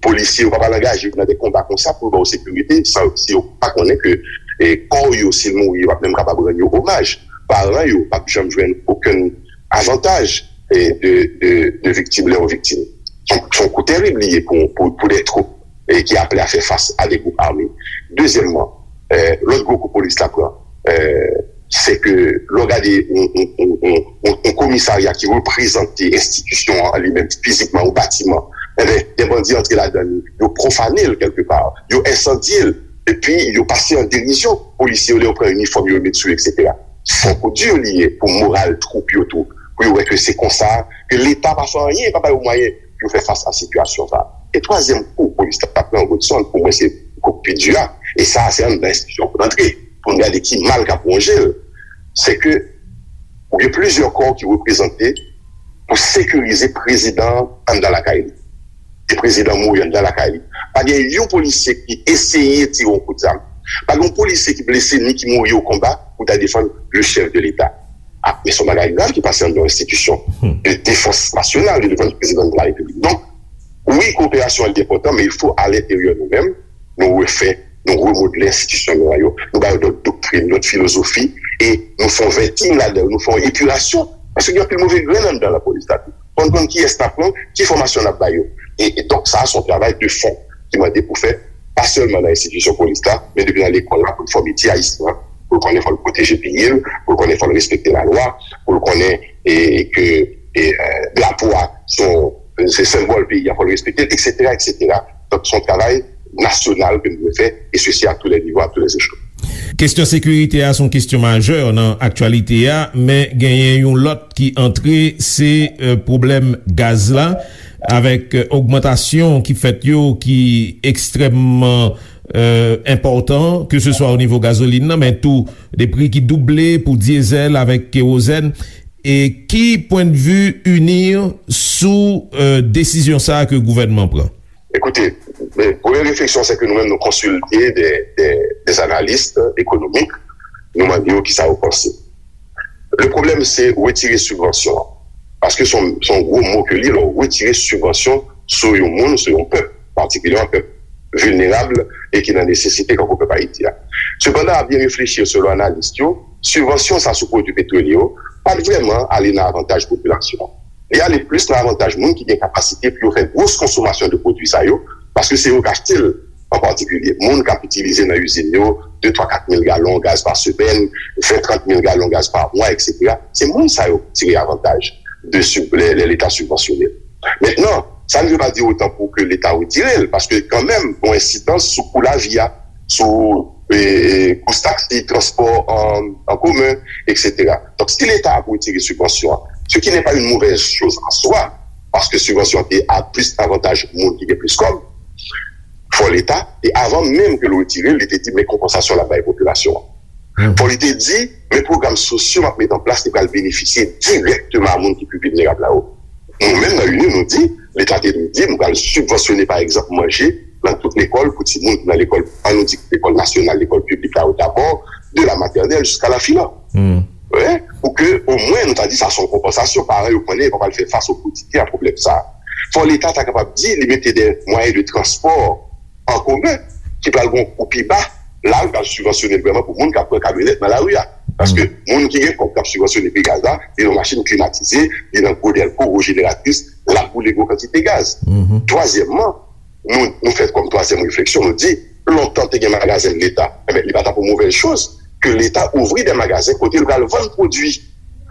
Polisye yo pa pral angaje yo nan de konba konsa pou yo ba w sekirite, san, si yo pa konnen ke, e, kò yo, si l mouri, yo p ap menm kapab rann yo omaj. Paran yo p ap janm jwenn okenn avantaj, e, de, de, de viktim, lè yo viktim. Se yon, se yon kou tèrib li ye pou, pou, pou de twoup, e, ki aple a fè fas a de gwoup ame. Dezyèmman, e, lòt gwo kou polis la pran, e, se ke lè w gade yon, yon, yon, yon, yon, yon komisarya ki reprezante enstitisyon an li menm fizikman, yon batiman, enben, de bandi antre ladan li, yo pwofane l kèlkepa, yo ensandye l, epi yo pase an derizyon polisye yo lè yo pran inifòm yo, yo met sou yo, etsetera. Se yon kou di li ye pou moral twoup yo tou, pou yo wè ke se konsa, ke Leta pa fè anyen, pa ba yo mwayen pou yo fè fas a sitiyasyon sa a. E twazyèm kou polis la pran, Godson, pou mwen se kou k pi di a, e sa a se anndan enstitisyon pou l antre, pou n gade ki mal k ap wonje l, se ke ou gen plizyè kò ki reprezante pou sekirize prezidan an anndan lakay li. E prezidan mouri anndan lakay li. Pa gen yon polisye ki eseye tire yon kout zam. Pa gen yon polisye ki blese ni ki mouri o konba pou ta defann le chèf de Leta. A, men se yon bagay grav ki pase anndan yon enstitisyon de defans nasyonal, de defans du président de la République. Donk, wi, kowoperasyon an li enpòtan, men il faut à l'intérieur nou menm, nou refè, nou remodle enstitisyon nou an yo. Nou ba yo lòt doktrin, lòt filozofi, e nou fè yon vetting ladan yo, nou fè yon epirasyon. Paske gen anpil move grenn anndan lapolis la tou. Fò n konn kiyès n ap pran, ki fòmasyon n ap ba yo. E, e donk, sa a se yon travay de fon ki mande pou fèt, pa sèlman nan enstitisyon polis la, men depi nan lekòl la, pou n fòme ti Ayisyen an, pou l konnen fò l pwoteje peyi l, pou l konnen fò l respekte lalwa, pou l konnen, e, ke, e, e, drapo a se yon, se senbòl peyi a, fò l respekte l, etsetera, etsetera. Donk, se yon travay nasyonal ke nou dwe fè, e sesi à tous les niveaux, à tous les échelons. Kesyon sekirite a se yon kesyon majè nan aktyalite a, men genyen yon lòt ki antre, se, euh, pwoblèm gaz la, avèk, euh, ogmantasyon ki fèt yo ki ekstrèmman, euh, enpòtan, ke se swa o nivo gazolin nan, men tou de pri ki double pou dyezèl avèk kewozèn. E ki pwendvi UNIR sou, euh, desizyon sa a ke gouvènman pran? Ekoute, men, premye refleksyon, se ke nou menm, nou konsilte de, de, de analis ekonomik, nou mande yo kisa yo panse. Le pwoblèm, se retire sibvansyon an. Paske se yon, se yon gwo mo ke li ye, lè w retire sibvansyon sou yon moun, sou yon pèp, patikilyèman pèp vilnerab e ki nan nesesite, kankou pèp Ayiti a. Sepandan, a byen reflechi, selon analis yo, sibvansyon sa sou pwodui petwolye yo pa t vrèman ale nan avantaj popilasyon an. Li ale plis nan avantaj moun ki gen kapasite pou yo fè gwos konsomasyon de pwodui sa yo, paske se yo k achte l an patikilye. Moun k ap itilize nan izin yo de, twa, kat mil galon gaz pa semèn, ven, trant mil galon gaz pa mwa, etsetera. Se moun sa yo k tire avantaj de sib-, lè, lè Leta sibvansyone l. Mentnan, sa ne veut pas dire autant pou ke Leta retire l, paske kanmenm, gen yon ensidans sou kou lavi a, sou, e, e, kous taksi, transpò an, an komen, etsetera. Donk, si Leta ap retire sibvansyon an, ce qui n'est pas une mauvaise chose en soi, paske sibvansyon an te a plis avantaj moun ki gen plis kòb, Fò Leta, e avan menm ke l retire l, li te di, men konpansasyon l ap bay popilasyon an. Fò li te di, men pwogram sosyo m ap met an plas, li pral benefisye dirèkteman a moun ki pi vilnerab la yo. Nou menm nan UNIR, nou di, Leta te dwe di, nou pral sibvansyone, pa egzanp, manje nan tout lekòl pou timoun ki nan lekòl, an nou di lekòl nasyonal, lekòl piblik la yo dabò, de la maternelle jusqu'à la filan. Wi, pou ke omwen nou ta di sa se yon konpansasyon, paran yo konnen yo pa pral fè fas o kotidyen a pwoblèm sa. Fò Leta ta kapab di li mete de mwayen de transpò an komen ki pral gen yon kou pi ba, la yo pral sibvansyone l vrèman pou moun k ap pran kamyonèt nan lari a. Paske moun ki gen kòb k ap sibvansyone pri gaz la, li nan machin klimatize, li nan gwo dèlko, gwo jeneratris, l ap boule gwo kantite gaz. Twazyèmman, nou, nou fè kòm twazyèm refleksyon, nou di, lontan te gen magazen Leta, enben, li pa t ap yon movèz choz ke Leta ouvri de magazen kote l pral vann pwodui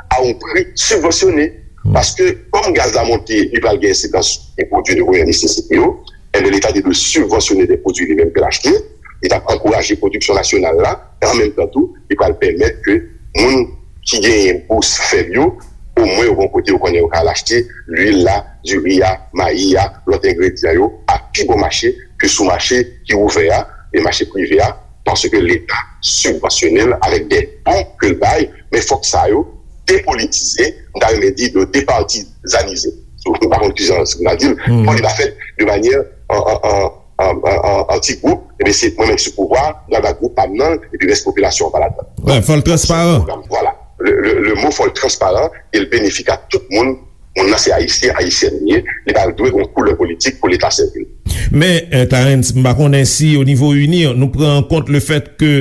a yon pri sibvansyone. Paske, kòm gaz la monte, li pral gen ensidans sou pwodui de premyè nesesite yo, enben, Leta te dwe sibvansyone de pwodui li menm ke l achte, li t ap ankouraje pwodiksyon nasyonal la, e an menm tan tou, li pral pèmèt ke moun ki genyen bous fèb yo, omwen yo gen yon kote yo konnen yo ka al achte lwil la, diri a, mayi a, lòt engredyan yo a pi bon mache ke sou mache ki ouvè a, e mache prive a, paske Leta sibvansyone l avèk de bon ke l bay, men fòk sa yo depolitize, m ta renmen di yo departizanize. So, m pa konn kijan si m ta di l, fò li ta fèt de manyè an, an, an, an, an, an, an ti gwoup, ebyen se mwen menm ki sou pouvwa, m pral ba gwoup pa m nan, epi rès popilasyon an pa ladan. Wi, fò l transparan. Vwala. Le, le, le mo fò l transparan e l benefik a tout moun. Moun nan se ayisyen, ayisyèn li ye, li pa dwe gen yon koulè politik pou Leta sèvi l. Men, eh, Clarens, m pa konnen si o nivo UNIR, nou pran an kont le fèt ke,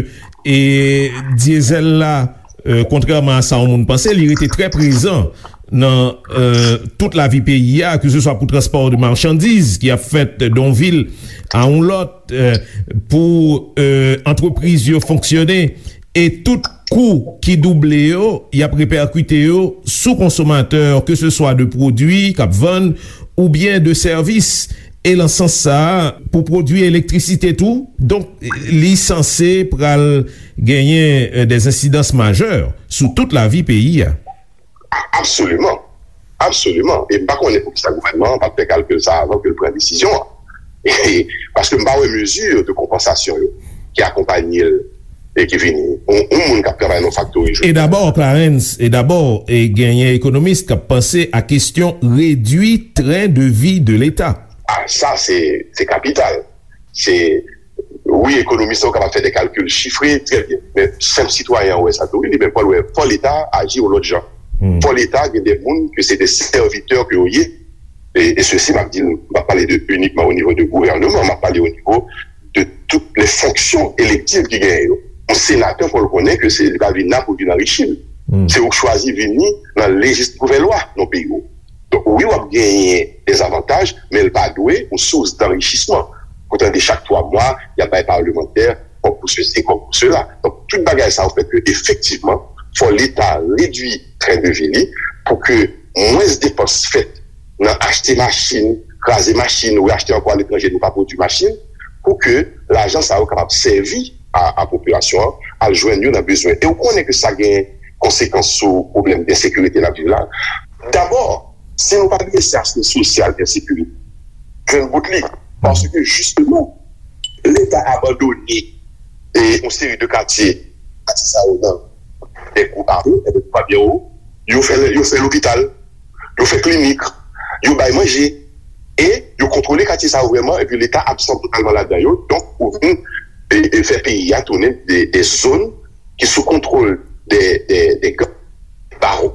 eh, dyezèl la, eh, kontrèman a sa yon moun panse, li rete trè prezan nan, eh, tout lavi peyi a, ke se swa pou transpò de machandiz ki ap fèt de yon vil a yon lòt, eh, pou, eh, antrepriz yo fonksyone, e tout kou ki double yo, y ap repèkite yo sou konsomatè, ke se swa de pwodui k ap vann oubyen de sèvis. E nan sans sa a, pou pwodui elektrisite tou, donk, li sanse pral genyen, eh, de ensidans majè sou tout lavi peyi a. A-, absoliman. Absoliman. E m pa konnen poukisa gouvènman an pa t fè kalkil sa avan ke l pran desizyon an. E, paske m pa wè mezi de konpansasyon yo ki akonpanye l e ki vini. Yon, yon moun k ap travay nan yon faktori jodi a. E dabò, Clarens, e dabò, e genyen ekonomis k ap panse a kesyon redui tren de vi de Leta. A, sa, se, se kapital. Se, wi, ekonomis yo kapab fè de kalkil chifre, trè byen. Men senp sitwayen an wè sa tou. Wi, li menm, fò l wè, fò Leta aji yon lòt jan. Fò Leta gen de moun ke se de sèvitè ke yo ye. E, e sesi, m ap di l, m pa pale de inikman o nivo de gouvèneman, m ap pale o nivo de tout lè fonksyon elektiv ki genyen yo. Yon senatè, fò l konnen ke se, li pa vin la pou vin anrichi l. Se ou k chwazi vini nan lejis-, gouvèlwa nan peyi w. Donk, wi, w ap genyen de zavantaj, men l pa dwe yon sous danrichisman. Pou tande chak twa mwa, y ap bay palmantè kòb pou sesi, kòb pou sela. Donk, tout bagay sa yo fè ke, efektivman, fò Leta redui tren de vi li pou ke mwens depans fèt nan achte machin, kraze machin, ou achte ankò aletranje, nou pa pwodui machin, pou ke lajan sa yo kapab sèvi a, a popilasyon an, al jwenn yo nan bezwen. E ou konnen ke sa gen konsekans sou pwoblèm de ensekirite n ap viv la. Dabò, si nou pa drese aspè sosyal de ensekirite, jwenn bout li. Paske, jisteman, Leta abandone e yon seri de katye, katye sa yo nan de gwoup ame, e de gwoup ame yo, yo fè, yo fè lopital, yo fè klinik, yo bay manje, e yo kontwole katye sa yo vrèman, epi Leta absan totalman ladan yo. Donk, ou vin, e, e fè peyi a tounen de, de zòn ki sou kontwòl de, de, de gang, bawon,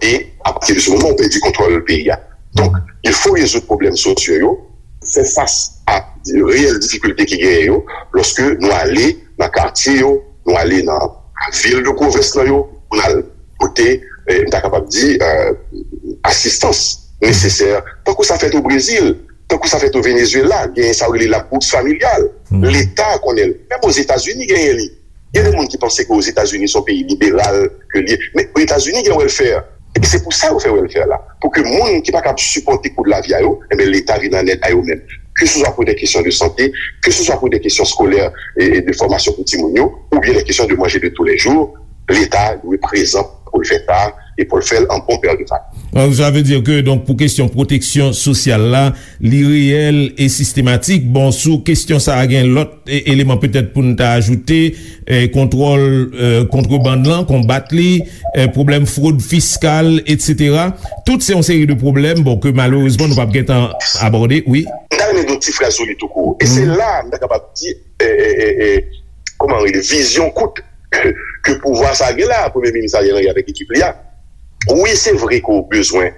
e apati de se moman, ou pèdi kontwòl peyi a. Donk, il fo rezoud pwoblèm sosyo yo, fè fas a reyèl difikilte ki genyen yo, lòske nou ale nan katye yo, nou ale nan vil de pwovens lan yo, pou n al pote, eh, m ta kapab di, eh, asistans nesesè, tankou sa fèt o Brezil, tankou sa fèt o Venezuela, genyen sa yo rele la bourse familiale. Leta konnen l. Menm Ozetazini genyen li. Gen de moun ki panse ke Ozetazini se yon peyi liberal ke l ye. Men Ozetazini gen welfare. E se pou sa yo fè welfare la. Pou ke moun ki pa kab sipòte kou de lavi a yo, enben, Leta vin an èd a yo menm. Ke se swa pou de kesyon de sante, ke se swa pou de kesyon skolè e, e de fòmasyon pou timoun yo, oubyen de kesyon de manje de tou lè jou, Leta dwe prezan pou l fè sa e pou l fè l an bon pè de familye. Sa vle di ke, donk, pou kesyon pwoteksyon sosyal la, li reyèl e sistematik. Bon, sou kesyon sa a, gen lòt e- eleman petèt pou n ta ajoute, e, kontwòl, e, kontrebann lan, konbat li, e, pwoblèm fwod fiskal, etsetera. Tout se yon seri de pwoblèm, bon, ke malerezman nou p ap gentan abòde, wi. M ta renmen di yon ti fraz sou li tou kou. E se la m ta kapab di, e, e, e, e, kòman rele, vizyon kout ke pouvwa sa gen la, Premye Minis Ariel Henry avèk ekip li a. Wi, se vre ke w bezwen,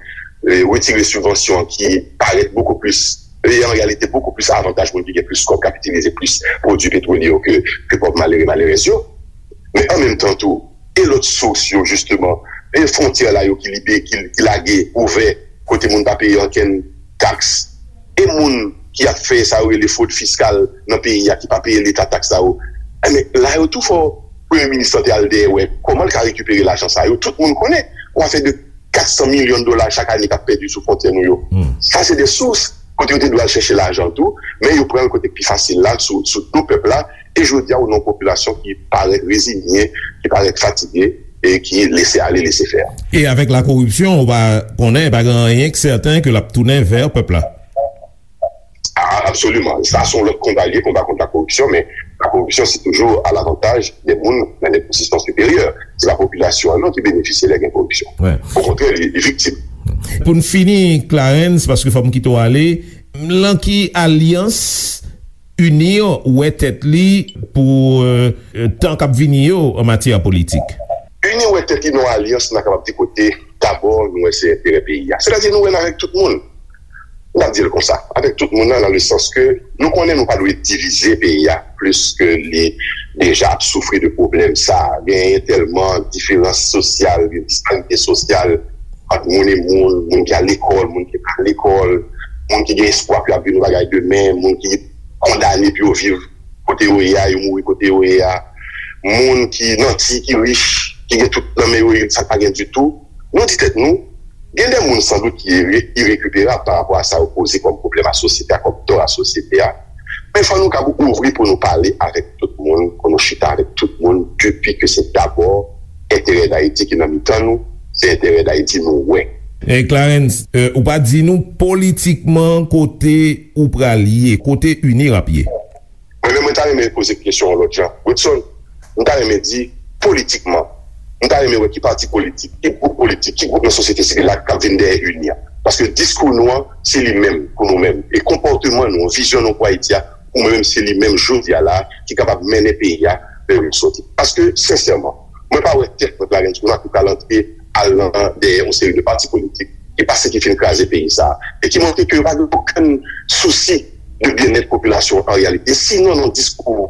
e, retire sibvansyon ki parèt bokou plis, e, an reyalite bokou plis avantaj moun ki gen plis kòb, kapitalize plis pwodui petwolye yo ke, ke pòv malere, malerèz yo. Men an menm tan tou, e lòt sous yo, jisteman, e fwontyè la yo ki libe, ki, ki lage ouvè, kote moun pa peye ankenn taks, e moun ki ap fè sa yo rele fwod fiskal nan peyi a, ki pa peye leta taks sa yo. Enben, la yo tou fò Premye Minis lan te al dèyè wè kòman l ka rekipere lajan sa yo. Tout moun konnen, yon afè de kat san milyon dola chak ane k ap pèdi sou fwontyè nou yo. Sa se de sous kote yo te dwe al chèche lajan tou, men yo pran l kote k pi fasil la, sou, sou do pèp la, e jodi a, ou nan yon popilasyon ki parèt reziye, ki parèt fatige, e ki lese ale, lese fè. E avèk lakoripsyon, ou pa konnen, pa gen anyen k sèten ke l ap tounen vè pèp la. A, absoliman. Sa se yon lòt konba li ye, konba kont lakoripsyon, men lakoripsyon se toujou alavantaj de moun nan de pozisyon siperyè. Se pa popilasyon an non ki benefisye lè gen koripsyon. Okontrè, li, li viktim. Pou n fini, Clarens, paske fò m kite w ale, lan ki alyans UNIR wè tèt li pou, e, tan k ap vini yo an matyè politik? UNIR wè tèt li nan yon alyans, n a kapab di, kote dabò nou wè se enterè peyi a. Sètadi nou wè n avèk tout moun. N ap di l konsa, avèk tout moun nan, nan le sans ke nou konnen nou pa dwe divize peyi a plis ke li deja ap soufri de pwoblèm sa. Genyen tèlman diferans sosyal, gen disparite sosyal ant moun e moun, moun ki al lekòl, moun ki pa al lekòl, moun ki gen espwa pou y ap vin yon bagay demen, moun ki kondane pou yo viv kote yo ye a, yo mouri kote yo ye a, moun ki nanti, ki rich, ki gen tout nan men yo, sa pa gen ditou. Nou di tèt nou, gen de moun sandout ki ire-, irekiperab pa rapò a sa yo poze kòm pwoblèm a sosyete a, kòm tò a sosyete a. Men fò nou kab ouvri pou nou pale avèk tout moun, pou nou chita avèk tout moun, depi ke se dabò enterè Dayiti ki nan mitan nou, se enterè Dayiti nou wè. E Clarens, e, ou pa di nou politikman kote ou pral ye, kote UNIR ap ye? Mwen menm, mwen ta renmen poze kesyon an lòt jan. Godson, m ta renmen di, politikman, m ta renmen wè ki pati politik, ki gwoup politik, ki gwoup nan sosyete sivil la k ap vin dèyè UNIR. Paske diskou nou an, se li menm, pou nou menm. E konpòteman nou, vizyon nou pou Ayiti a, pou mwen menm, se li menm jodi a la, ki kapab mennen peyi a vè yon sòti. Paske, sensèman, mwen pa wè tèt mwen, Clarens, pou n ap pral antre al nan, dèyè yon seri de pati politik ki pase, ki fin kraze peyi sa a, e ki montre ke yo pa gen okenn sousi de byennèt popilasyon an reyalite. Sinon, nan diskou,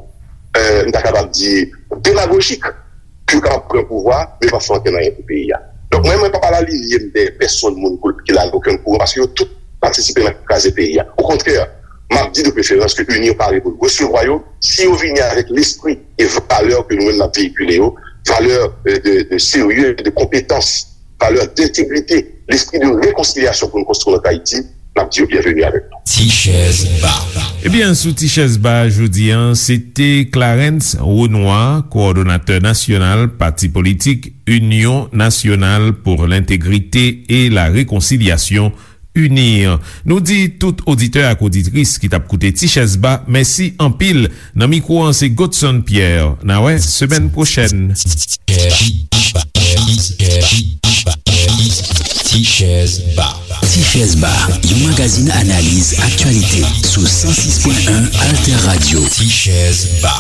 e, m ta kapab di, demagojik, pou yo kapab pran pouvwa, men pa fè ankenn anyen pou peyi a. Donk, mwen, mwen pa pral alinye m dèyè pèsonn moun ki la nan okenn kouran, paske yo tout patisipe nan kraze peyi a. Okontrè, m ap di de preferans ke UNIR pare pou l resevwa yo, si yo vini avèk lespri e valè ke nou menm n ap veyikile yo, valè, e, de, de serye, de konpetans, valè dentegrite, lespri de rekonsilyasyon pou nou konstwi lòt Ayiti, n ap di yo byenveni avèk nou. Ti chèz ba. Ebyen, sou Ti chèz ba jodi a, se te Clarens Renois, kowòdonatè nasyonal pati politik Union Nationale pour l'Intégrité et la Réconciliation, UNIR. Nou di tout oditè ak oditris ki t ap koute Ti chèz ba, mèsi anpil. Nan mikwo an, se Godson Pierre. N a wè semèn pwochèn. Ti chèz ba. Ti chèz ba, yon magazin analiz aktyalite sou san sis pwen en Alter Radio. Ti chèz ba.